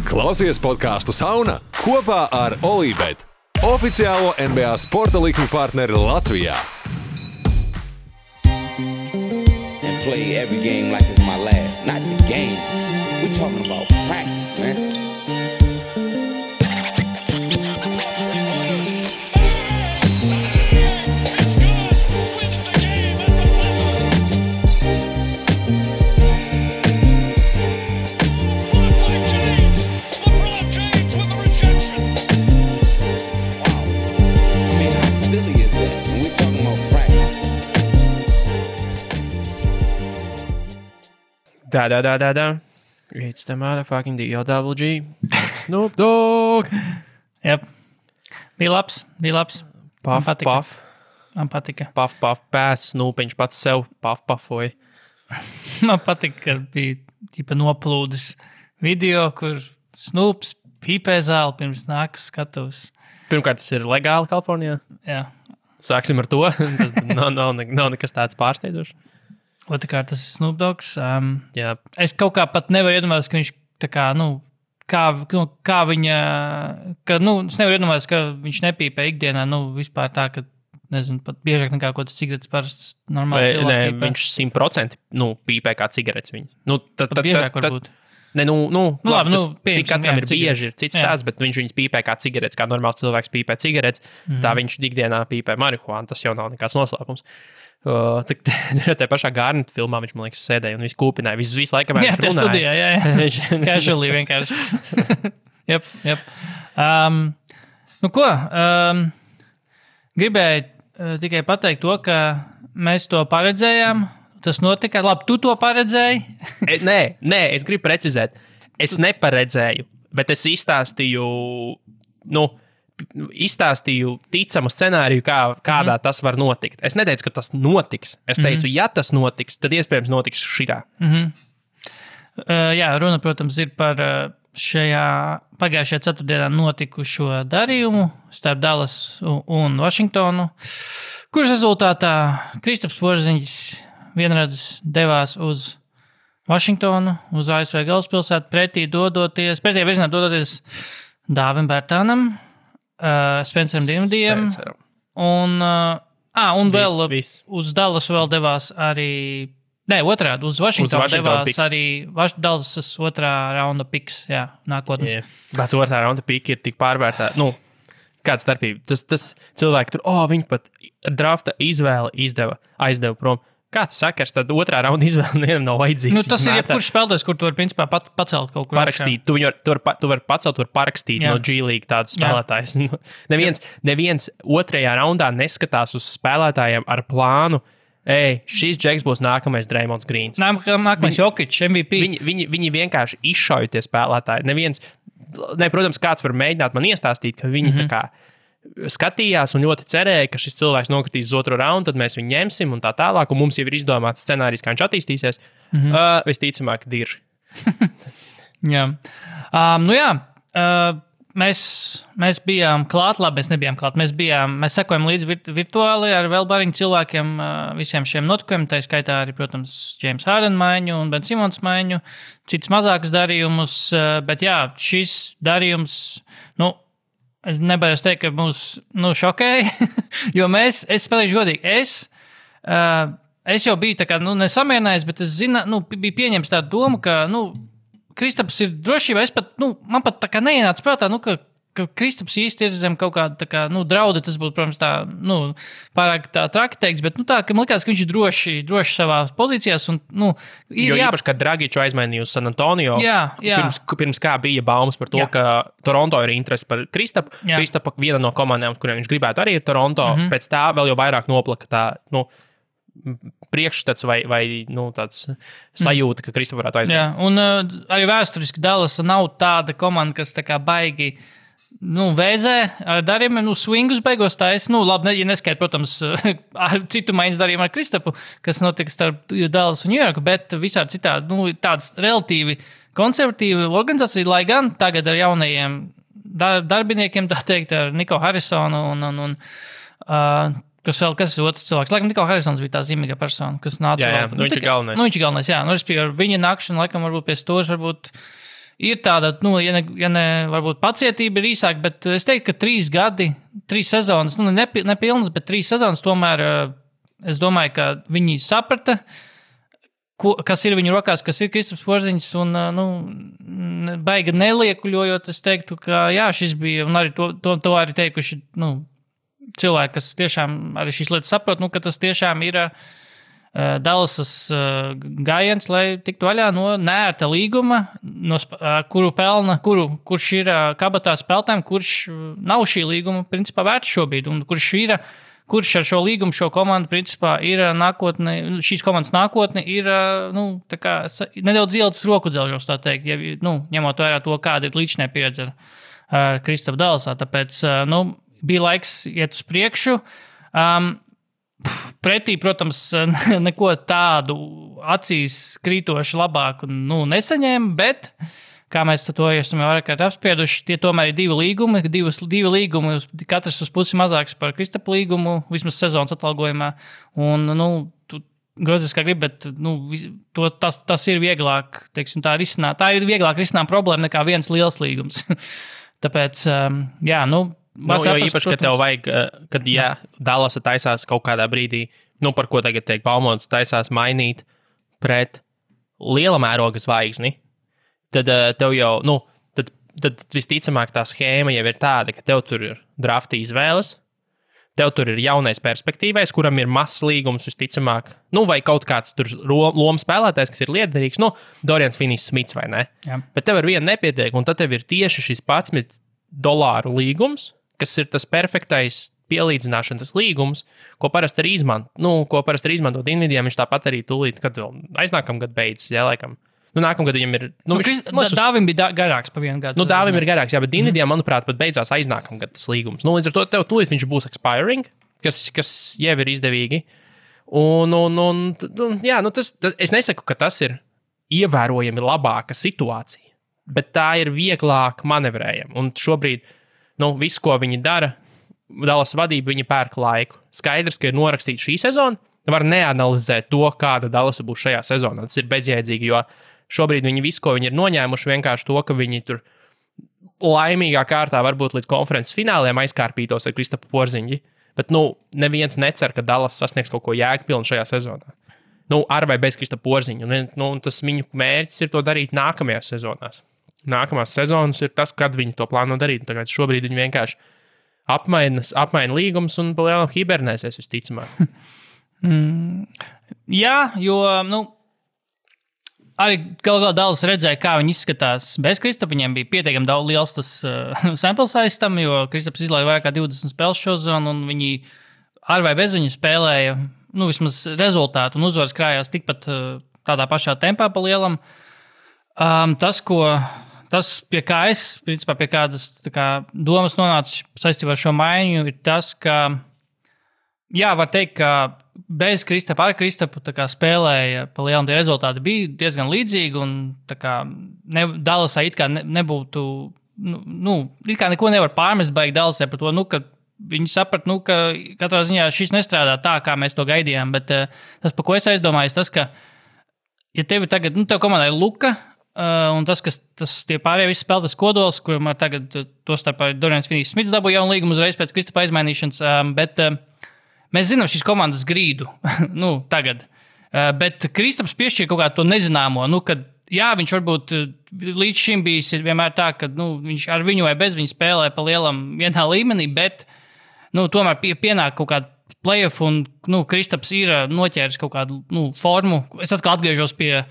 Klausies podcastu Sauna kopā ar Olībet, oficiālo NBA sporta likmi partneri Latvijā. And play every game like it's my last. Not the game. We talking about practice, man. Da. It's the motherfucking DLWG. Snoop Dogg. Jep. Bija labs. Puff. Man patika. Puff, pēs, Snoopiņš pats sev pufoja. Man patika, ka bija ķipa noplūdes video, kur Snoops pīpē zāli pirms nākas skatos. Pirmkārt, tas ir legāli Kalifornijā. Jā. Sāksim ar to. Tas nav nekas tāds pārsteidzošs. Otrkārt, tas ir Snoop Dogs. Jā. Es kaut kā pat nevaru iedomāties, ka viņš tā kā, kā viņa, es nevaru iedomāties, ka viņš nepīpē ikdienā, vispār tā, ka, nezinu, pat biežāk nekā kaut kāds cigaretes parasts normāli cilvēki pīpē. Viņš 100% pīpē kā cigaretes viņu. Pat biežāk varbūt. Labi, cik katram ir bieži, ir cits stāsts, bet viņš viņus pīpē kā cigaretes, kā normāls cilvēks pīpē cigaretes, tā viņš ikdienā pīpē marihuānu, tas jau nav nekāds noslēpums. Tā pašā Garnet filmā viņš, man liekas, sēdēja un visu kūpināja. Visu laiku, kamēr viņš runāja. Studijā, jā. Casually vienkārši. Jep. Gribēju tikai pateikt to, ka mēs to paredzējām. Tas notika. Labi, tu to paredzēji? Nē, es gribu precizēt. Es neparedzēju, bet es izstāstīju ticamu scenāriju, kādā tas var notikt. Es neteicu, ka tas notiks. Es teicu, ja tas notiks, tad iespējams notiks šitā. Jā, runa, protams, ir par pagājušajā ceturtdienā notikušo darījumu starp Dallas un Vašingtonu, kuras rezultātā Kristaps Porziņģis vienreiz devās uz Vašingtonu, uz ASV galvaspilsētu, pretī virzienā dodoties Dāvim Bērtānam, Spenceram Dinvidijam un vēl uz Dallas vēl devās arī, otrādi, uz Vašingtonu devās picks. Arī Dallasas otrā raunda piks, nākotnes. Pēc otrā raunda pika ir tik pārvērtā, kāda starpība. Tas cilvēki tur, viņi pat drafta izvēli aizdeva prom. Kāds sakars, tad otrā raunda izvēle nevienam nav vajadzīgs. Tas ir jebkurš spēlētājs, kur tu vari principā pacelt kaut kur. Parakstīt. Tu vari pacelt, tu vari parakstīt no G-League tādus spēlētājus. Neviens otrajā raundā neskatās uz spēlētājiem ar plānu. Šis džeks būs nākamais Draymonds Greens. Nākamais Jokic, MVP. Viņi vienkārši izšauja tie spēlētāji. Protams, kāds var mēģināt man iestāstīt, ka viņi tā kā skatījās un ļoti cerēja, ka šis cilvēks nokritīs uz otro raundu, tad mēs viņu ņemsim un tā tālāk, un mums jau ir izdomāts scenārijs, kā viņš attīstīsies. Visticamāk, dirži. Jā. Mēs bijām klāt, labi, mēs nebijām klāt. Mēs sekojam līdzi virtuāli ar vēl bariņu cilvēkiem visiem šiem notikumiem, tā skaitā arī, protams, James Harden maiņu un Ben Simons maiņu, cits mazākas darījumus, bet šis darījums, es nebaidos teikt, ka mūs šokēja, jo es spēlēšu godīgi. Es jau biju tā kā, nesamierinājies, bet es biju pieņems tādu domu, ka, Kristaps ir drošībā. Man pat tā kā neienāca prātā, ka Kristaps īsti ir zem kaut kāda, tā kā, drauda, tas būtu, protams, tā, pārāk tā traki teiks, bet, tā, ka man likās, ka viņš ir droši savā pozīcijās, un, jo īpaši, kad Dragiču aizmainīja uz San Antonio, pirms kā bija baumas par to, ka Toronto ir interesi par Kristapu. Kristapa viena no komandām, kuriem viņš gribētu arī ir Toronto, pēc tā vēl jau vairāk noplaka tā, priekšstats vai tāds sajūta, ka Kristapa varētu aizmainīt. Jā, un arī vēsturiski Dallas nav tāda komanda, kas tā kā baigi vēzē ar darījumiem, swingus beigos taisa. Labi, ja neskaidrs, protams, citu maiņas darījumu ar Kristapu, kas notika starp Dallas un New Yorku, bet visādi citādi, tāds relatīvi konservatīva organizācija, lai gan tagad ar jaunajiem darbiniekiem, tā teikt, ar Niko Harrisonu un kas ir otrs cilvēks. Laikam Niko Harrisons bija tā zīmīga persona, kas nāca vēl. Viņš ir galvenais. Viņš ir galvenais, jā. Respektīvi, ar viņa nākšanu, laikam, varbūt pie stūras, varbūt ir tāda, ja ne varbūt pacietība ir īsāk, bet es teiktu, ka 3 gadi, 3 sezonas, nepilnas, bet 3 sezonas tomēr es domāju, ka viņi saprata, kas ir viņu rokās, kas ir Kristaps Porziņš, un baigi neliekuļojot, es teiktu, ka jā, šis bija, un arī to arī teikuši, cilvēki, kas tiešām arī šīs lietas saprot, ka tas tiešām ir Dallasas gājiens, lai tiktu vaļā no neērta līguma, kurš ir kabatā spēlētājiem, kurš nav šī līguma principā vērts šobrīd, un kurš ar šo līgumu, šo komandu principā ir nākotne, šīs komandas nākotne ir tā kā nedaudz ielicis roku dzelžos, tā teikt, ņemot vērā to, kāda ir līdzinē pieredze ar Kristapu Dallasā, tāpēc, bija laiks iet uz priekšu. Pretī, protams, neko tādu acīs krītoši labāku nesaņēma, bet, kā mēs to esam jau vairāk apsprieduši, tie tomēr ir 2 līgumi, divi līgumi, katrs uz pusi mazāks par Kristapu līgumu, vismaz sezonas atalgojumā, un, tu grozies kā gribi, bet, tas ir vieglāk, teiksim, tā ir vieglāk risināt problēma nekā viens liels līgums. Tāpēc, jā, jo īpaši, ka tev vajag, kad Dallasa taisās kaut kādā brīdī, par ko tagad tiek baumots, taisās mainīt pret liela mēroga zvaigzni, tad tev jau, tad visticamāk tā schēma jau ir tāda, ka tev tur ir drafta izvēles, tev tur ir jaunais perspektīvais, kuram ir mazs līgums visticamāk, vai kaut kāds tur loma spēlētājs, kas ir liederīgs, Dorians Finney-Smits vai ne? Jā. Bet tev ar vienu nepietiek, un tad tev ir tieši šis $11 līgums, kas ir tas perfektais pielīdzināšanas līgums, ko parasti arī izmantot Nvidia, viņš tāpat arī tūlīt, kad vēl aiznākamgad beidzas, laikam. Nākamgad viņam ir... Dāvim bija garāks pa vienu gadu. Dāvim ir garāks, jā, bet Nvidia, manuprāt, pat beidzās aiznākamgad tas līgums. Līdz ar to tev tūlīt viņš būs expiring, kas jau ir izdevīgi. Es nesaku, ka tas ir ievērojami labāka situācija, bet tā ir vieglāk manevrējama. Un šobrīd, viss, ko viņi dara, Dallas vadība, viņi pērk laiku. Skaidrs, ka ir norakstīta šī sezona, var neanalizēt to, kāda Dallasa būs šajā sezonā. Tas ir bezjēdzīgi, jo šobrīd viņi visu, ko viņi ir noņēmuši, vienkārši to, ka viņi tur laimīgā kārtā varbūt līdz konferences fināliem aizkārpītos ar Kristapu Porziņu. Bet, neviens necer, ka Dallas sasniegs kaut ko jēgpilnu šajā sezonā. Ar vai bez Kristapu Porziņu. Tas viņu mērķis ir to darīt nākamajās sezonās. Nākamās sezonas ir tas, kad viņi to plāno darīt. Tagad šobrīd viņi vienkārši apmaina līgumus un palielināt hibernēsies visticamāk. Jā, jo, arī galā Dallas redzēja, kā viņi izskatās bez Kristapa. Viņiem bija pietiekami daudz liels tas sample size tam, jo Kristaps izlaiž vairāk kā 20 spēles šo zonu, un viņi ar vai bez viņu spēlēja, vismaz rezultātu un uzvaras krājās tikpat tādā pašā tempā pa lielam. Tas, pie kā es, principā, pie kādas domas nonāca saistībā ar šo maiņu, ir tas, ka, var teikt, ka bez Kristapa, ar Kristapu spēlēja pa lielam tie rezultāti bija diezgan līdzīgi, un Dallasā it kā nebūtu, it kā neko nevar pārmest baigi Dallasē par to, ka viņi saprat, ka katrā ziņā šis nestrādā tā, kā mēs to gaidījām, bet tas, par ko es aizdomājos, tas, ka, ja tev tagad, tev komandā ir Luka, un tie pārējie visi spēlētas kodols, kuram ar tagad to starp arī Dorians Finney-Smits dabūja jaunu līgumu uzreiz pēc Kristapa aizmainīšanas, bet mēs zinām šīs komandas grīdu, tagad. Bet Kristaps piešķir kaut kādu to nezināmo, kad, viņš varbūt līdz šim bijis vienmēr tā, ka, viņš ar viņu vai bez viņa spēlē pa lielam vienā līmenī, bet, tomēr pienāk kaut kāda playoff, un, Kristaps ir noķēris kaut kādu, formu. Es atkal atgriežos pie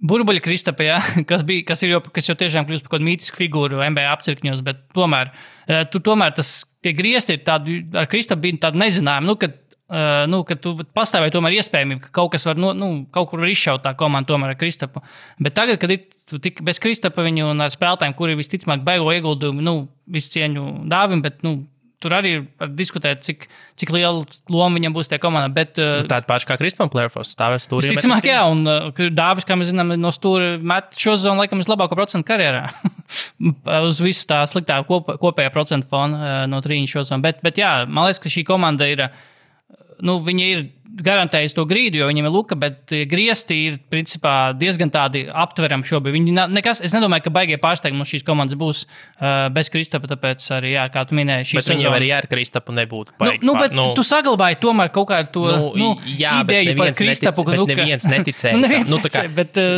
Burbuļa Kristapa, kas jau tiešām kļūst par kaut kādu mītisku figūru NBA apcirkņos, bet tomēr tie griezti ir tādi, ar Kristapu bija tādi nezinājumi, ka tu pastāvēji tomēr iespējamība, ka kaut kas var, kaut kur var izšaut tā komanda tomēr ar Kristapu. Bet tagad, kad tu tik bez Kristapa viņu un ar spēlētājiem, kuri visticamāk baigo ieguldījumu, visu cieņu Dāvim, bet, tur arī var diskutēt, cik liela loma viņam būs tajā komandā. Bet, tāda paša kā Kristapam playoffs, stāvēs stūrī. Visticamāk, jā, un Dāvis, kā mēs zinām, no stūra met šo zonu, laikam, vislabāko procentu karjerā. Uz visu tā sliktā kopējā procentu fona no 3 šo zonu. Bet jā, man liekas, ka šī komanda ir, viņa ir garantējis to grīdu, jo viņiem ir luka, bet griezti ir principā diezgan tādi aptverami šobrīd. Viņi nekas, es nedomāju, ka baigie pārsteigumi no šīs komandas būs bez Kristapa, tāpēc arī, jā, kā tu minēji, šī sezona. Bet viņiem arī ar Kristapu nebūtu baigi. Bet tu saglabāji tomēr kaut kādu to ideju par Kristapu. Bet neviens neticēja.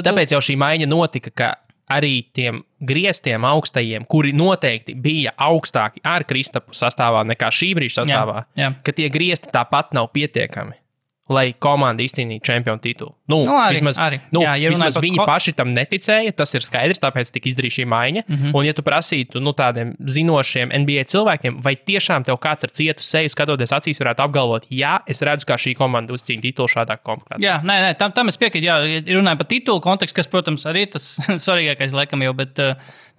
Tāpēc jau šī maiņa notika, ka arī tiem grieztiem augstajiem, kuri noteikti bija augstāki ar Kristapu sastāvā nekā šī brīža sastāvā, ka tie griezti tāpat nav pietiekami, lai komanda izcīnītu čempionu titulu. Vismaz viņi paši tam neticēja, tas ir skaidrs, tāpēc tika izdarīta šī maiņa. Un ja tu prasītu tādiem zinošiem NBA cilvēkiem, vai tiešām tev kāds ar cietu seju skatoties acīs varētu apgalvot, jā, es redzu, kā šī komanda uzcīna titulu šādā komplektācijā. Jā, nē, tam es piekrītu, jā, runāju par titulu kontekstu, kas, protams, arī tas svarīgākais laikam jau, bet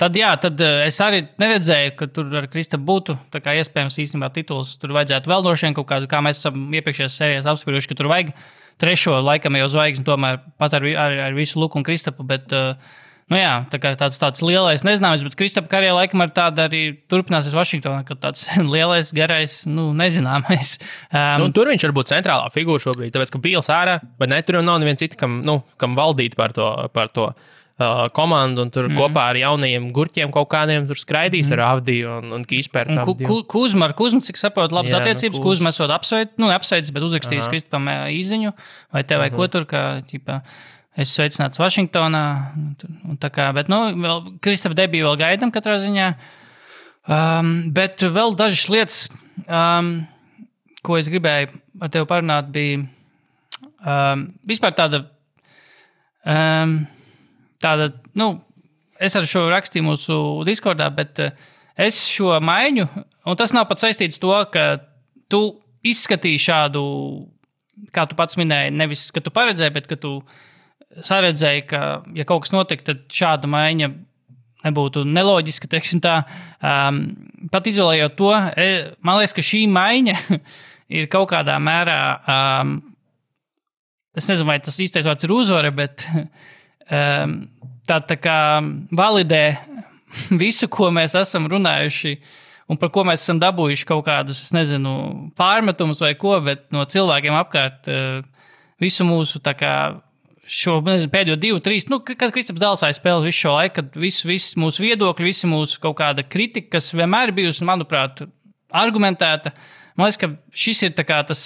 tad es arī neredzēju, ka tur ar Kristapu būtu, tā kā iespējams īstenībā tituls tur vajadzētu vēl droši vien kaut kādu, kā mēs esam iepriekšējās sērijās apsprieduši, ka tur vajag trešo laikam jau zvaigzni tomēr pat ar visu Luku un Kristapu, bet, tā kā tāds lielais nezināms, bet Kristapa karjerā laikam ar tādu arī turpināsies Vašingtonā, ka tāds lielais, garais, nezināmais. Tur viņš var būt centrālā figūra šobrīd, tāpēc, ka Bīls ārā, bet ne, tur jau nav neviens cits, kam valdīt par to komandu, un tur kopā ar jaunajiem gurķiem kaut kādiem tur skraidīs ar Avdiju un Kīspertu. Kuzma, cik saprotu, labas attiecības. Kuzma esot apsveicis, bet uzrakstījis Kristapam īziņu, vai te vai ko tur, ka, es sveicināts Vašingtonā, un tā kā, bet, vēl Kristapa debiju vēl gaidam katrā ziņā. Bet vēl dažas lietas, ko es gribēju ar tevi parunāt, bija vispār tāda, es ar šo rakstīju mūsu Discordā, bet es šo maiņu, un tas nav pat saistīts to, ka tu izskatīji šādu, kā tu pats minēji, nevis, ka tu paredzēji, bet ka tu saredzēji, ka, ja kaut kas notiek, tad šāda maiņa nebūtu neloģiska, teiksim tā. Pat izolējot to, man liekas, ka šī maiņa ir kaut kādā mērā, es nezinu, vai tas īstais vārds ir uzvara, bet tā kā validē visu, ko mēs esam runājuši un par ko mēs esam dabūjuši kaut kādus, es nezinu, pārmetumus vai ko, bet no cilvēkiem apkārt visu mūsu tā kā šo pēdējo 2-3, kad Kristaps Dālsājs spēlē visu šo laiku, kad viss mūsu viedokļi, visi mūsu kaut kāda kritika, kas vienmēr ir bijusi, manuprāt, argumentēta. Man liekas, ka šis ir tā kā tas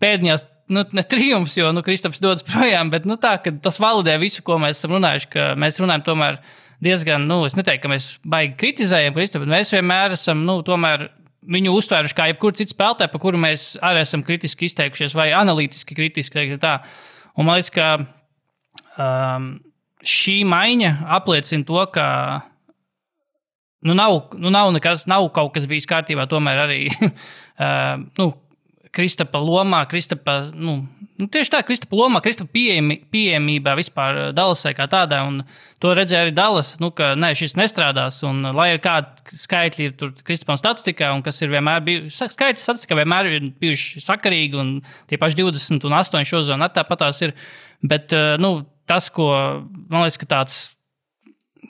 pēdējās ne triumfs, jo Kristaps dodas projām, bet tā, ka tas validē visu, ko mēs esam runājuši, ka mēs runājam tomēr diezgan, es neteiktu, ka mēs baigi kritizējam Kristapu, bet mēs vienmēr esam, tomēr viņu uztvēruši kā jebkuru citu spēlētāju, par kuru mēs arī esam kritiski izteikušies vai analītiski kritiski. Tā. Un man liekas, ka šī maiņa apliecina to, ka nav nekas, nav kaut kas bijis kārtībā, tomēr arī Kristapa lomā, tieši tā, Kristapa lomā, Kristapa pieejamībā vispār Dallasai kā tādā, un to redzēja arī Dallas, ka šis nestrādās, un lai ir kādi skaitļi ir tur Kristapam statistikā, un kas ir vienmēr bijuši, skaitļi statistikā vienmēr ir bijuši sakarīgi, un tie paši 20 un 8 šo zonu tāpatās ir, bet, tas, ko, man liekas, ka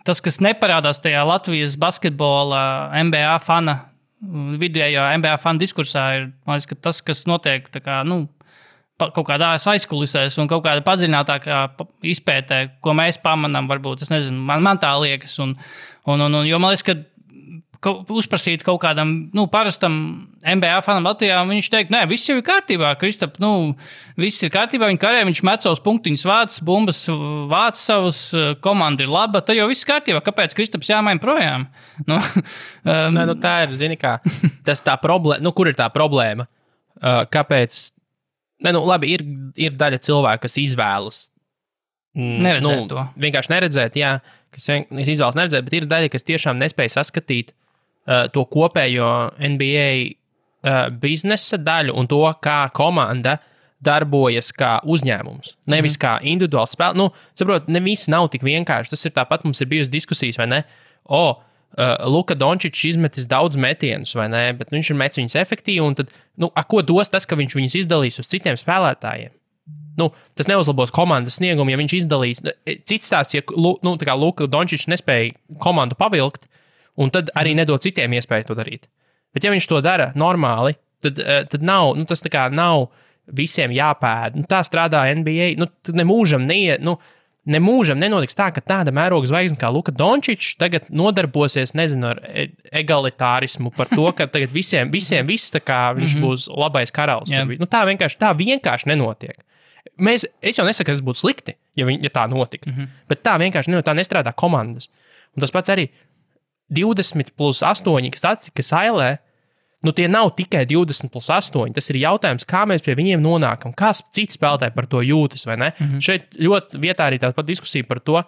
tas, kas neparādās tajā Latvijas basketbola NBA fana vidējā NBA fanu diskursā ir, man liekas, ka tas, kas notiek tā kā, kaut kādā aizkulisēs un kaut kāda padziļinātākā izpētē, ko mēs pamanām, varbūt, es nezinu, man tā liekas, un jo man liekas, ka uzprasīt kaut kādam, parastam NBA fanam Latvijā, un viņš teikt, nē, viss jau ir kārtībā, Kristap, viss ir kārtībā, viņa karē, viņš met savus punktiņus vāc, bumbas vāc savus, komanda ir laba, tad jau viss kārtībā, kāpēc Kristaps jāmaina projām? Tā ir, zini kā, tas tā problēma, kur ir tā problēma? Kāpēc? Labi, ir daļa cilvēku, kas izvēlas neredzēt to. Vienkārši neredzēt, jā, kas izvēlas neredzēt, bet ir daļa, kas tiešām nespēja saskatīt to kopējo NBA biznesa daļu un to, kā komanda darbojas kā uzņēmums. Nevis kā individuāls spēle. Saprot, ne viss nav tik vienkārši. Tas ir tāpat, mums ir bijusi diskusijas, vai ne? Luka Dončičs izmetis daudz metienus, vai ne? Bet viņš ir metis viņus efektīvi, un tad, ko dos tas, ka viņš viņus izdalīs uz citiem spēlētājiem? Tas neuzlabos komandas sniegumu, ja viņš izdalīs. Cits stāsts, ja Luka Dončičs nespēja komandu pavilkt, un tad arī nedod citiem iespēju to darīt. Bet ja viņš to dara normāli, tad nav, tas tā kā nav visiem jāpēd. Nu, tā strādā NBA. Nu, nemūžam nenotiks tā, ka tāda mēroga zvaigzne kā Luka Dončičs tagad nodarbosies, nezinu, ar egalitārismu par to, ka tagad visiem viss tā kā viņš būs labais karalis. Nu, tā vienkārši nenotiek. Es jau nesaku, ka tas būtu slikti, ja tā notiktu, bet tā vienkārši nenotiek, tā nestrādā komandas. Un tas pats arī 20+8, kas statistika sailē, nu tie nav tikai 20+8, tas ir jautājums, kā mēs pie viņiem nonākam, kā citi spēlētāji par to jūtas, vai ne? Šeit ļoti vietā arī tāda pat diskusija par to,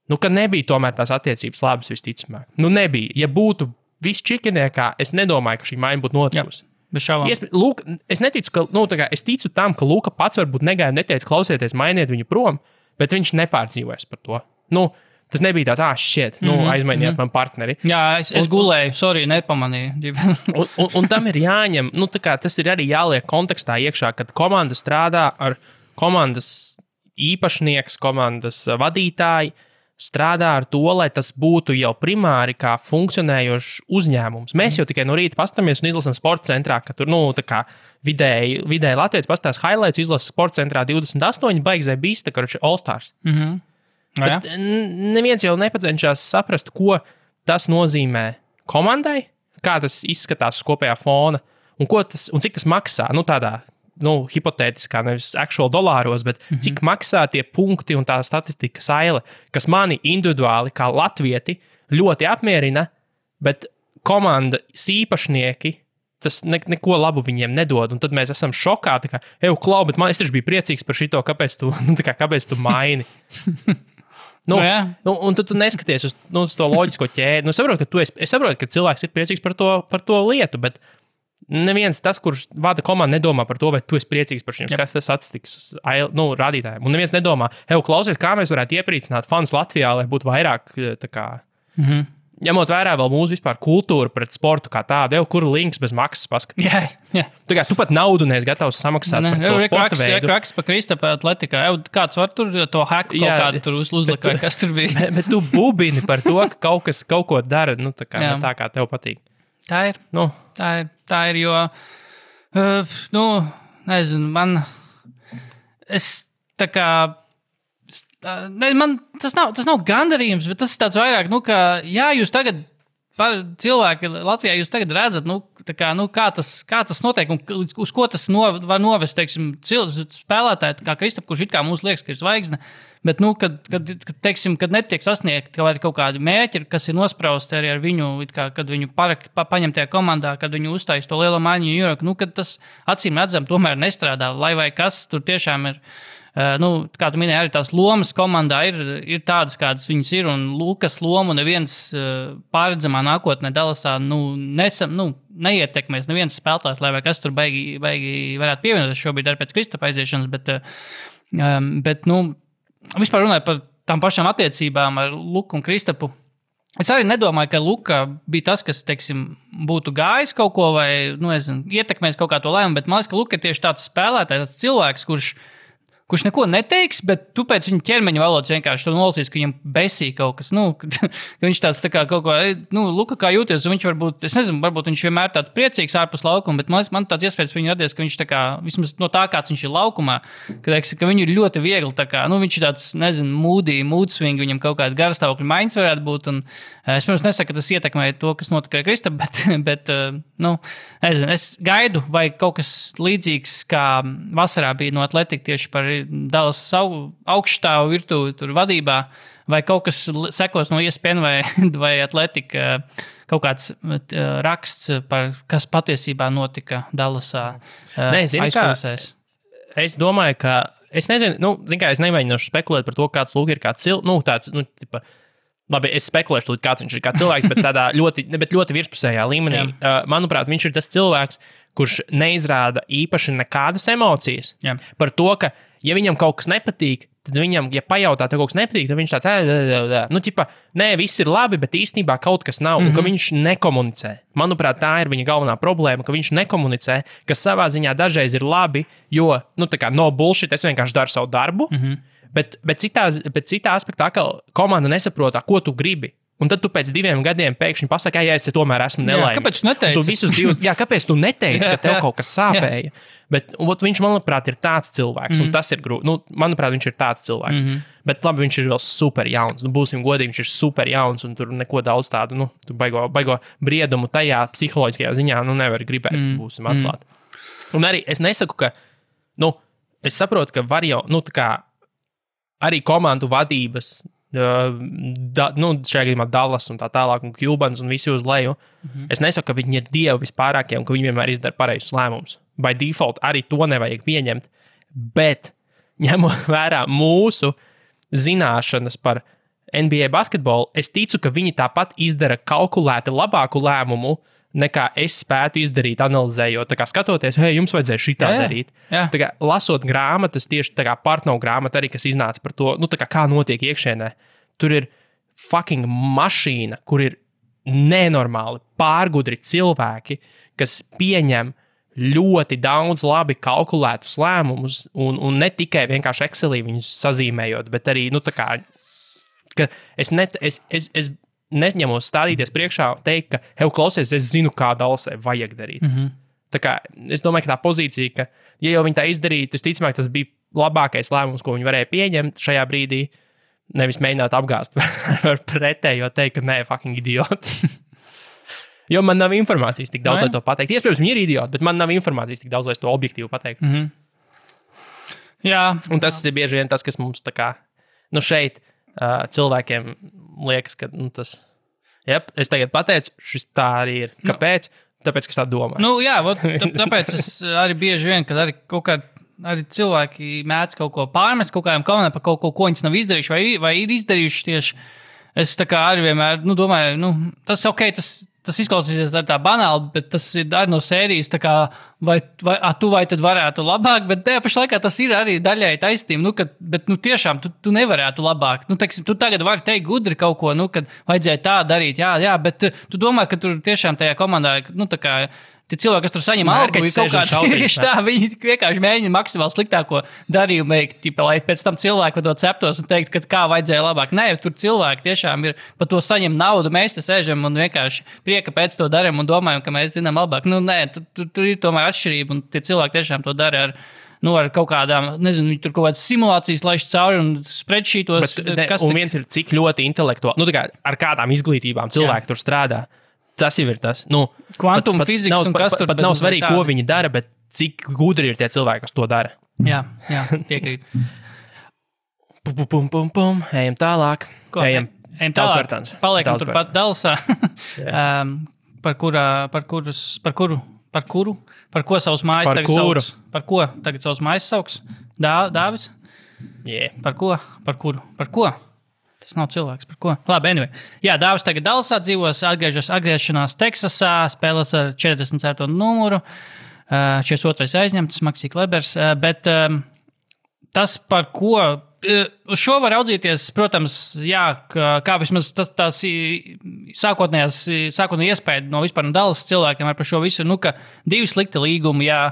nu, ka nebija tomēr tās attiecības labas visticamāk. Nu, nebija. Ja būtu viss čikiniekā, es nedomāju, ka šī maiņa būtu notikusi. Es neticu, ka, es ticu tam, ka Luka pats varbūt negāja un neteica, klausieties, mainiet viņu prom, bet viņš nepārdzīvojas par to. Nu, tas nebija tāds, aizmainiet man partneri. Jā, es gulēju, sorry, nepamanīju. un tam ir jāņem, tas ir arī jāliek kontekstā iekšā, kad komanda strādā ar komandas īpašnieks, komandas vadītāji, strādā ar to, lai tas būtu jau primāri kā funkcionējošs uzņēmums. Mēs jau tikai no rīta pastamies un izlasām sporta centrā, ka tur, vidēji Latvijas pastāstās highlights, izlasa sporta centrā 28, baigzē bijis, tā kā All-Stars. Bet neviens jau nepacenšas saprast, ko tas nozīmē komandai, kā tas izskatās uz kopējā fona un cik tas maksā. Tādā hipotētiskā, nevis actual dolāros, bet cik maksā tie punkti un tā statistika saile, kas mani individuāli kā latvieti ļoti apmierina, bet komandas īpašnieki tas neko labu viņiem nedod. Un tad mēs esam šokā, Klau, bet es taču biju priecīgs par šito, kāpēc tu maini? Un tu neskaties uz to loģisko ķēdi. Es saprotu, ka cilvēks ir priecīgs par to lietu, bet neviens tas, kurš vada komandu, nedomā par to, vai tu esi priecīgs par šiem statistikas rādītājiem. Un neviens nedomā, klausies, kā mēs varētu iepriecināt fanus Latvijā, lai būtu vairāk ņemot vērā vēl mūsu vispār kultūru pret sportu kā tādu, kur links bez maksas paskatīt. Jā. Tu pat naudu neesi gatavs samaksāt par to sporta veidu. Raks pa Kristapa atletikā. Kāds var tur to haku kaut kādu tur uzlikt, vai kas tur bija? bet tu bubini par to, ka kaut ko dara, tā kā tev patīk. Tā ir. Tā ir, jo, nezinu, man tas nav gandarījums, bet tas ir tāds vairāk, ka, jā, jūs tagad, cilvēki Latvijā, jūs tagad redzat, kā tas notiek un uz ko tas var novest, teiksim, spēlētāji, kā Kristap, kurš it kā mums liekas, ka ir zvaigzne, bet, kad netiek sasniegt kaut kādi mērķi, kas ir nosprausti arī ar viņu, kad viņu paņem tajā komandā, kad viņu uztais to lielo maiņu New York, kad tas acīm redzam tomēr nestrādā, lai vai kas tur tiešām ir. Kā tu minēji, arī tās lomas komandā ir tādas, kādas viņas ir, un Lukas lomu neviens pārredzamā nākotnē Dallasā neietekmēs neviens spēlētājs, lai vai kas tur baigi varētu pievienoties šobrīd arī pēc Kristapa aiziešanas, bet vispār runājot par tām pašām attiecībām ar Luku un Kristapu, es arī nedomāju, ka Luka bija tas, kas, teiksim, būtu gājis kaut ko vai, ietekmēs kaut kā to lēmumu, bet man liekas, ka Luka ir tieši tāds spēlētājs, tāds cilvēks, kurš neko neteiks, bet tu pēc viņa ķermeņa valodas vienkārši to nolasīs, ka viņam besīja kaut kas, ka viņš tāds tā kā kaut ko, Luka, kā jūties, un viņš varbūt, es nezinu, varbūt viņš vienmēr tāds priecīgs ārpus laukuma, bet man tāds iespējas par viņu radies, ka viņš tā kā, vismaz no tā, kāds viņš ir laukumā, ka viņu ir ļoti viegli, tā kā, viņš ir tāds, nezinu, mood swing, viņam kaut kāda garstāvokļa maiņas varētu būt, un es, pirms nesaku, ka tas ietekmē to, kas notika ar Kristapu, bet nezinu, es gaidu, vai kaut kas līdzīgs, kā vasarā bija no Atletika tieši par Dallas augšstāvu virtuvi tur vadībā, vai kaut kas sekos no ESPN vai Atletika, kaut kāds raksts par, kas patiesībā notika Dallasā aizpilsēs. Es domāju, ka, es nezinu, es nemēģināšu spekulēt par to, kāds Luka ir kāds tāds, labi, es spekulēšu, kāds viņš ir kā cilvēks, bet tādā ļoti virspusējā līmenī. Manuprāt, viņš ir tas cilvēks, kurš neizrāda īpaši nekādas emocijas. Par to, ka, ja viņam kaut kas nepatīk, tad viņam, ja pajautā, tev kaut kas nepatīk, tad viņš tāds, nē, viss ir labi, bet īstenībā kaut kas nav, un ka viņš nekomunicē. Manuprāt, tā ir viņa galvenā problēma, ka viņš nekomunicē, kas savā ziņā dažreiz ir labi, jo, no bullshit, es vienkārši daru savu darbu, bet citā aspektā, ka komanda nesaprot, ko tu gribi. Un tad tu pēc 2 gadiem pēkšņi pasaki, es tomēr esmu nelaimīgs. Kāpēc tu neteici? Tu visus 2, kāpēc tu neteici, ka tev kaut kas sāpēja? Bet viņš, manuprāt, ir tāds cilvēks, un tas ir grūti. Nu, manuprāt, viņš ir tāds cilvēks. Bet labi, viņš ir vēl super jauns. Nu, būsim godīgi, viņš ir super jauns, un tur neko daudz tādu, nu, tu baigo briedumu tajā psiholoģiskajā ziņā, nu, nevar gribēt, būsim atklāti. Un arī es nesaku, ka, nu, es saprotu, ka var jau, nu, tā kā arī komandu vadības, šajā gadījumā Dallas un tā tālāk, un Cubans un visi uz leju. Es nesaku, ka viņi ir dievi vispārākie un ka viņi vienmēr izdara pareizus lēmumus. By default arī to nevajag pieņemt, bet ņemot vērā mūsu zināšanas par NBA basketbolu, es ticu, ka viņi tāpat izdara kalkulēti labāku lēmumu, nekā es spētu izdarīt, analizējot. Tā kā skatoties, hei, jums vajadzēja šitā darīt. Jā. Tā kā lasot grāmatas, tieši tā kā Partnow grāmata arī, kas iznāca par to, nu, tā kā notiek iekšienē. Tur ir fucking mašīna, kur ir nenormāli pārgudri cilvēki, kas pieņem ļoti daudz labi kalkulētus lēmumus, un ne tikai vienkārši Excelī viņus sazīmējot, bet arī, nu, tā kā, ka es neņemos stādīties priekšā un teikt, ka, hei, klausies, es zinu, kā Dallasai vajag darīt. Tā kā, es domāju, ka tā pozīcija, ka, ja jau viņi tā izdarītu, visticamāk, tas bija labākais lēmums, ko viņi varēja pieņemt šajā brīdī, nevis mēģināt apgāzt ar pretējo teikt, ka nē, fucking idioti. Jo man nav informācijas tik daudz, lai to pateikt. Iespējams, viņi ir idioti, bet man nav informācijas tik daudz, lai to objektīvi pateikt. Jā. Un tas ir bieži vien tas, kas mums tā kā, nu, šeit cilvēkiem liekas, ka tas, es tagad pateicu, šis tā arī ir. Kāpēc? Tāpēc, ka es tā domāju. Nu, jā, tāpēc es arī bieži vien, kad arī kaut kā arī cilvēki mēdz kaut ko pārmest, kaut kādiem kauniem par kaut ko, ko viņas nav izdarījuši vai ir izdarījuši tieši. Es tā kā arī vienmēr, nu, domāju, tas ok, tas izklausīsies tā banāli, bet tas ir arī no sērijas, tā kā, vai tad varētu labāk, bet tajā pašā laikā tas ir arī daļai taisnība, bet tiešām tu nevarētu labāk. Nu, teiksim, tu tagad vari teikt gudri kaut ko, kad vajadzēja tā darīt, jā, bet tu domā, ka tur tiešām tajā komandā, nu, tā kā, tie cilvēki, kas tur saņem algu, viņi vienkārši mēģina maksimāli sliktāko darījumu veikt, lai pēc tam cilvēki par to ceptos un teikt, ka kā vajadzēja labāk. Nē, tur cilvēki tiešām ir par to saņem naudu, mēs te sēžam un vienkārši prieka pēc to darām un domājam, ka mēs zinām labāk. Nu, nē, tur ir tomēr atšķirība un tie cilvēki tiešām to dara ar kaut kādām, nezinu, tur kaut kādas simulācijas laiž cauri un spreadsheetos. Un viens ir cik ļoti intelektuāli, nu, tā kā ar kādām izglītībām cilvēki tur strādā. Tas jau ir tas. Nu, kvantuma fizikas un kas tur pat nav svarīgi, ko viņi dara, bet cik gudri ir tie cilvēki, kas to dara. Jā, piekrīt. Ejam tālāk. Ejam tālāk. Paliekam turpat Dallasā. Par ko savus mājas tagad sauks? Par ko tagad savus mājas sauks? Dāvis? Yeah. Par ko? Tas nav cilvēks, par ko. Labi, anyway. Jā, Dāvis tagad Dallasā dzīvos, atgriešanās Teksasā, spēlēs ar 44. numuru, 42. aizņemts, Maksī Klebers, bet tas, par ko, uz šo var raudzīties, protams, jā, kā vismaz tās sākotnējā iespēja no vispār no Dallas cilvēkiem par šo visu, ka 2 slikti līgumi, jā,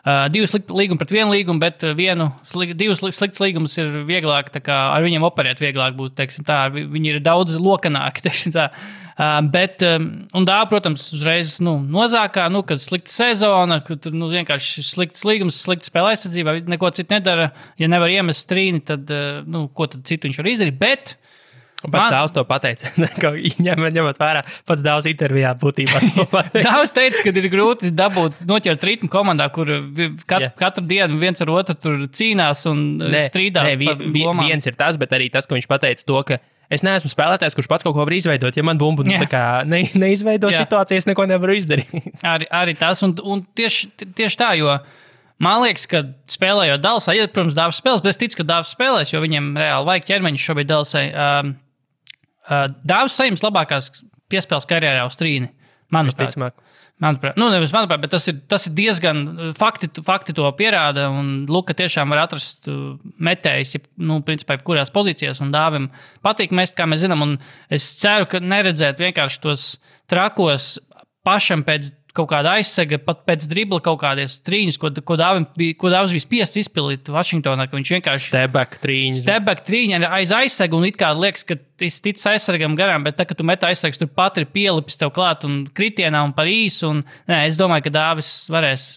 2 slikti līgumi pret 1 līgumu, bet 2 slikts līgumus ir vieglāk, tā kā ar viņiem operēt vieglāk būt, teiksim tā, viņi ir daudz lokanāki, teiksim tā. Bet, un protams, uzreiz, nozākā, kad slikta sezona, kad, vienkārši slikts līgums, slikta spēle aizsardzībā, neko citu nedara, ja nevar iemest strīni, tad, ko tad citu viņš var izdarīt, bet pats Dāvs to pateica, ņemot vērā, pats Dāvs intervijā būtībā to pateica. Dāvs teica, ka ir grūti noķert ritmu komandā, kur katru dienu viens ar otru tur cīnās un strīdās par lomām. Viens ir tas, bet arī tas, ka viņš pateica to, ka es neesmu spēlētājs, kurš pats kaut ko var izveidot. Ja man bumbu tā kā neizveido situāciju, es neko nevaru izdarīt. Arī tas, un tieši tā, jo man liekas, ka spēlējot Dallasā, protams, Dāvs spēlēs, bet es ticu, ka Dāvs spēlēs, jo viņiem reāli vajag ķermeņus šobrīd Dallasai. Dāvs saņems labākās piespēles karjerā uz trīni. Manuprāt, bet tas ir diezgan fakti to pierāda, un Luka tiešām var atrast metējus, principā, kurās pozīcijās, un Dāvim patīk mest, kā mēs zinām, un es ceru, ka neredzēt vienkārši tos trakos pašam pēc kaut kāda aizsega, pat pēc dribla kaut kādies trīņus, ko Dāvis bija spiests izpildīt Vašingtonā, ka viņš vienkārši step-back trīņi aiz aizsega, un it kā liekas, ka es ticu aizsargam garām, bet tā, ka tu met aizsargs, tur pat ir pielipis tev klāt un kritienā un par īsu, un es domāju, ka Dāvis varēs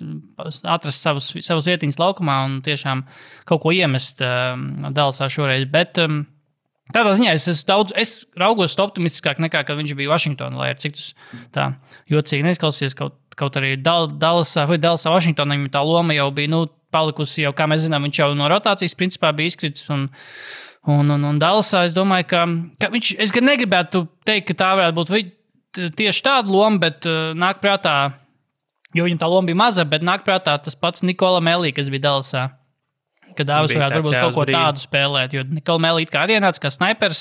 atrast savus vietiņas laukumā un tiešām kaut ko iemest Dallasā šoreiz, bet tādā ziņā es raugos optimistiskāk nekā, kad viņš bija Vašingtonā, lai ar cik tas tā jocīgi neizklausījies, kaut arī Dallasā Vašingtonā viņam tā loma jau bija, palikusi jau, kā mēs zinām, viņš jau no rotācijas principā bija izkritis, un Dallasā es domāju, ka viņš, es gan negribētu teikt, ka tā varētu būt tieši tāda loma, bet nāk prātā, jo viņam tā loma bija maza, bet nāk prātā tas pats Nikola Melī, kas bija Dallasā. Kad Dāvis varētu varbūt kaut ko tādu spēlēt, jo Nikola Melī it kā arī ienāca kā snaipers,